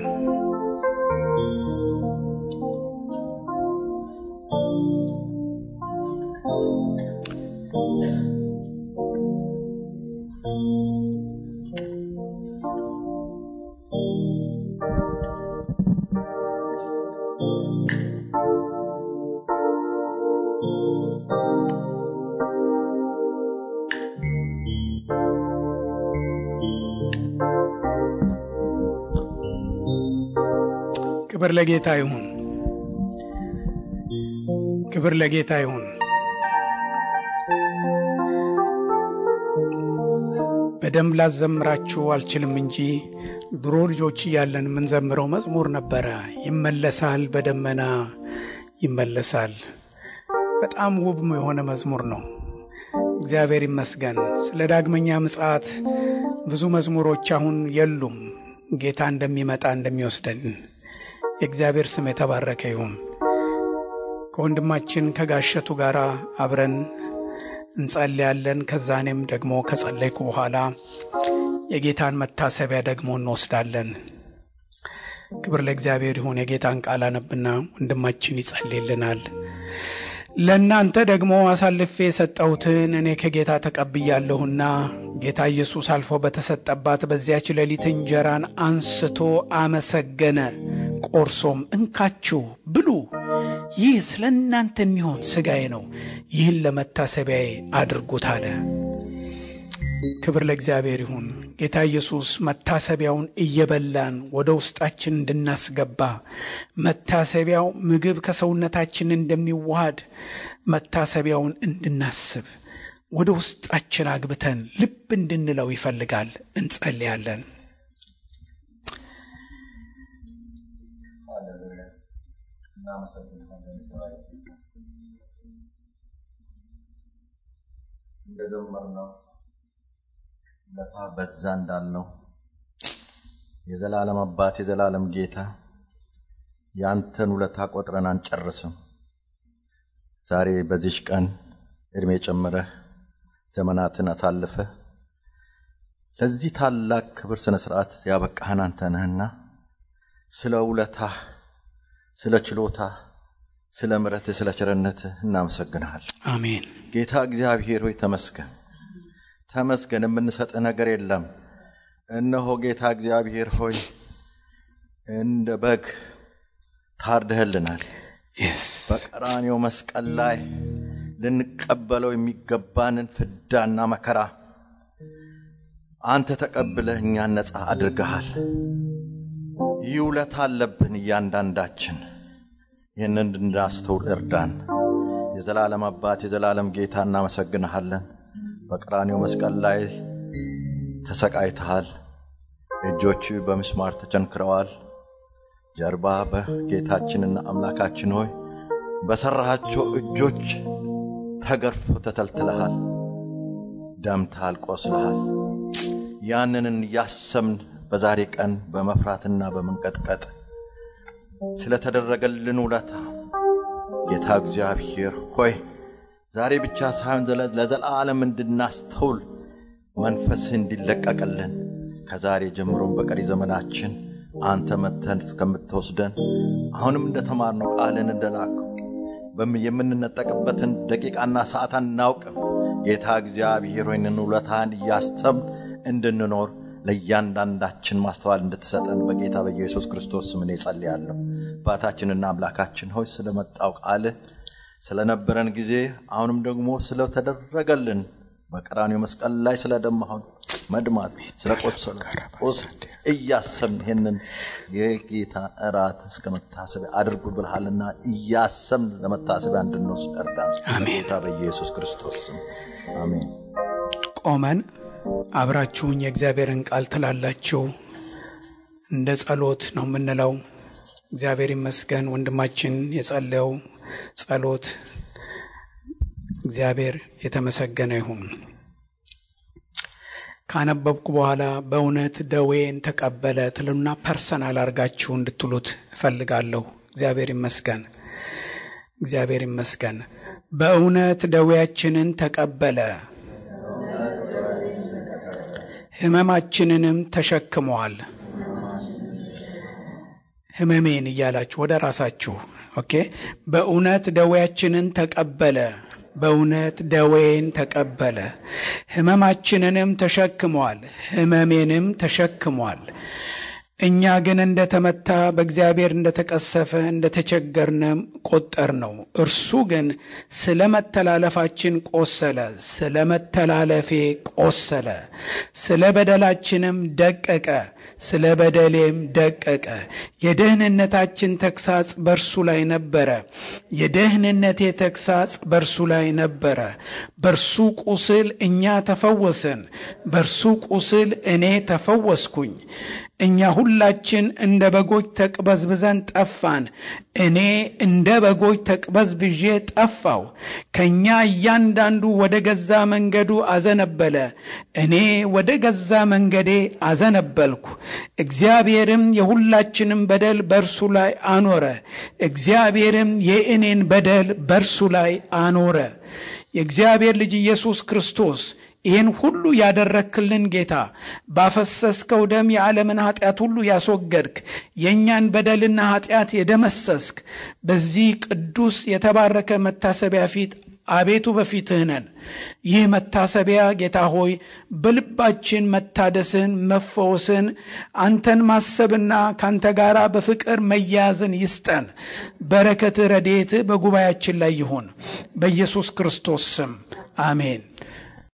ክብር ለጌታ ይሁን። ክብር ለጌታ ይሁን። በደንብ ላዘምራችሁ አልችልም እንጂ ድሮ ልጆች እያለን ምን ዘምረው መዝሙር ነበረ። ይመለሳል በደመና ይመለሳል። በጣም ውብ የሆነ መዝሙር ነው። እግዚአብሔር ይመስገን። ስለ ዳግመኛ ምጽአት ብዙ መዝሙሮች አሁን የሉም። ጌታ እንደሚመጣ እንደሚወስደን የእግዚአብሔር ስም የተባረከ ይሁን። ከወንድማችን ከጋሸቱ ጋር አብረን እንጸልያለን። ከዛኔም ደግሞ ከጸለይኩ በኋላ የጌታን መታሰቢያ ደግሞ እንወስዳለን። ክብር ለእግዚአብሔር ይሁን። የጌታን ቃል አነብና ወንድማችን ይጸልይልናል። ለእናንተ ደግሞ አሳልፌ የሰጠሁትን እኔ ከጌታ ተቀብያለሁና ጌታ ኢየሱስ አልፎ በተሰጠባት በዚያች ሌሊት እንጀራን አንስቶ አመሰገነ፣ ቆርሶም እንካችሁ ብሉ፣ ይህ ስለ እናንተ የሚሆን ሥጋዬ ነው፣ ይህን ለመታሰቢያዬ አድርጉት አለ። ክብር ለእግዚአብሔር ይሁን። ጌታ ኢየሱስ መታሰቢያውን እየበላን ወደ ውስጣችን እንድናስገባ፣ መታሰቢያው ምግብ ከሰውነታችን እንደሚዋሃድ መታሰቢያውን እንድናስብ ወደ ውስጣችን አግብተን ልብ እንድንለው ይፈልጋል። እንጸልያለን። ለታ በዛ እንዳልነው የዘላለም አባት የዘላለም ጌታ ያንተን ውለታ ቆጥረን አንጨርስም። ዛሬ በዚህ ቀን እድሜ ጨምረህ ዘመናትን አሳልፈህ ለዚህ ታላቅ ክብር ስነ ስርዓት ያበቃህን አንተ ነህና ስለ ውለታህ፣ ስለ ችሎታህ፣ ስለ ምሕረትህ፣ ስለ ቸርነትህ እናመሰግንሃለን። አሜን። ጌታ እግዚአብሔር ሆይ ተመስገን። ተመስገን። የምንሰጥህ ነገር የለም። እነሆ ጌታ እግዚአብሔር ሆይ እንደ በግ ታርደህልናል። በቀራንዮ መስቀል ላይ ልንቀበለው የሚገባንን ፍዳና መከራ አንተ ተቀብለህ እኛን ነፃ አድርገሃል። ይውለታ አለብን እያንዳንዳችን። ይህንን እንድናስተውል እርዳን። የዘላለም አባት የዘላለም ጌታ እናመሰግንሃለን። በቀራንዮ መስቀል ላይ ተሰቃይተሃል። እጆች በምስማር ተቸንክረዋል። ጀርባ በጌታችንና አምላካችን ሆይ በሰራሃቸው እጆች ተገርፎ ተተልትለሃል፣ ደምታል፣ ቆስለሃል። ያንንን ያሰምን በዛሬ ቀን በመፍራትና በመንቀጥቀጥ ስለተደረገልን ውለታ ጌታ እግዚአብሔር ሆይ ዛሬ ብቻ ሳይሆን ለዘላለም እንድናስተውል መንፈስ እንዲለቀቅልን ከዛሬ ጀምሮም በቀሪ ዘመናችን አንተ መተን እስከምትወስደን አሁንም እንደተማርነው ቃልን እንደላከው የምንነጠቅበትን ደቂቃና ሰዓት አናውቅም። ጌታ እግዚአብሔር ሆይ ውለታን ያሰብን እንድንኖር ለእያንዳንዳችን ማስተዋል እንድትሰጠን በጌታ በኢየሱስ ክርስቶስ ስም ጸልያለሁ። አባታችንና አምላካችን ሆይ ስለመጣው ቃል ስለነበረን ጊዜ አሁንም ደግሞ ስለተደረገልን በቀራንዮ መስቀል ላይ ስለደማው መድማት ስለቆሰለ እያሰብን ይሄንን የጌታ እራት እስከመታሰብ አድርጉ ብለሃልና እያሰብን ለመታሰብ እንድንወስድ እርዳን። በጌታ በኢየሱስ ክርስቶስ ስም አሜን። ቆመን አብራችሁኝ የእግዚአብሔርን ቃል ትላላችሁ። እንደ ጸሎት ነው የምንለው። እግዚአብሔር ይመስገን ወንድማችን የጸለየው ጸሎት እግዚአብሔር የተመሰገነ ይሁን። ካነበብኩ በኋላ በእውነት ደዌን ተቀበለ ትሉና ፐርሰናል አርጋችሁ እንድትሉት እፈልጋለሁ። እግዚአብሔር ይመስገን፣ እግዚአብሔር ይመስገን። በእውነት ደዌያችንን ተቀበለ ህመማችንንም ተሸክሟል። ህመሜን እያላችሁ ወደ ራሳችሁ ኦኬ። በእውነት ደዌያችንን ተቀበለ፣ በእውነት ደዌን ተቀበለ፣ ህመማችንንም ተሸክሟል፣ ህመሜንም ተሸክሟል። እኛ ግን እንደተመታ በእግዚአብሔር እንደተቀሰፈ እንደተቸገርነ ቆጠርነው። እርሱ ግን ስለመተላለፋችን ቆሰለ፣ ስለመተላለፌ ቆሰለ፣ ስለ በደላችንም ደቀቀ፣ ስለ በደሌም ደቀቀ። የደህንነታችን ተግሳጽ በእርሱ ላይ ነበረ፣ የደህንነቴ ተግሳጽ በእርሱ ላይ ነበረ። በእርሱ ቁስል እኛ ተፈወስን፣ በእርሱ ቁስል እኔ ተፈወስኩኝ። እኛ ሁላችን እንደ በጎች ተቅበዝብዘን ጠፋን፣ እኔ እንደ በጎች ተቅበዝብዤ ጠፋው። ከኛ እያንዳንዱ ወደ ገዛ መንገዱ አዘነበለ፣ እኔ ወደ ገዛ መንገዴ አዘነበልኩ። እግዚአብሔርም የሁላችንም በደል በእርሱ ላይ አኖረ፣ እግዚአብሔርም የእኔን በደል በእርሱ ላይ አኖረ። የእግዚአብሔር ልጅ ኢየሱስ ክርስቶስ ይህን ሁሉ ያደረክልን ጌታ፣ ባፈሰስከው ደም የዓለምን ኃጢአት ሁሉ ያስወገድክ፣ የእኛን በደልና ኃጢአት የደመሰስክ፣ በዚህ ቅዱስ የተባረከ መታሰቢያ ፊት አቤቱ በፊትህ ነን። ይህ መታሰቢያ ጌታ ሆይ በልባችን መታደስን፣ መፈወስን፣ አንተን ማሰብና ካንተ ጋራ በፍቅር መያዝን ይስጠን። በረከት ረድኤት በጉባኤያችን ላይ ይሁን፣ በኢየሱስ ክርስቶስ ስም አሜን።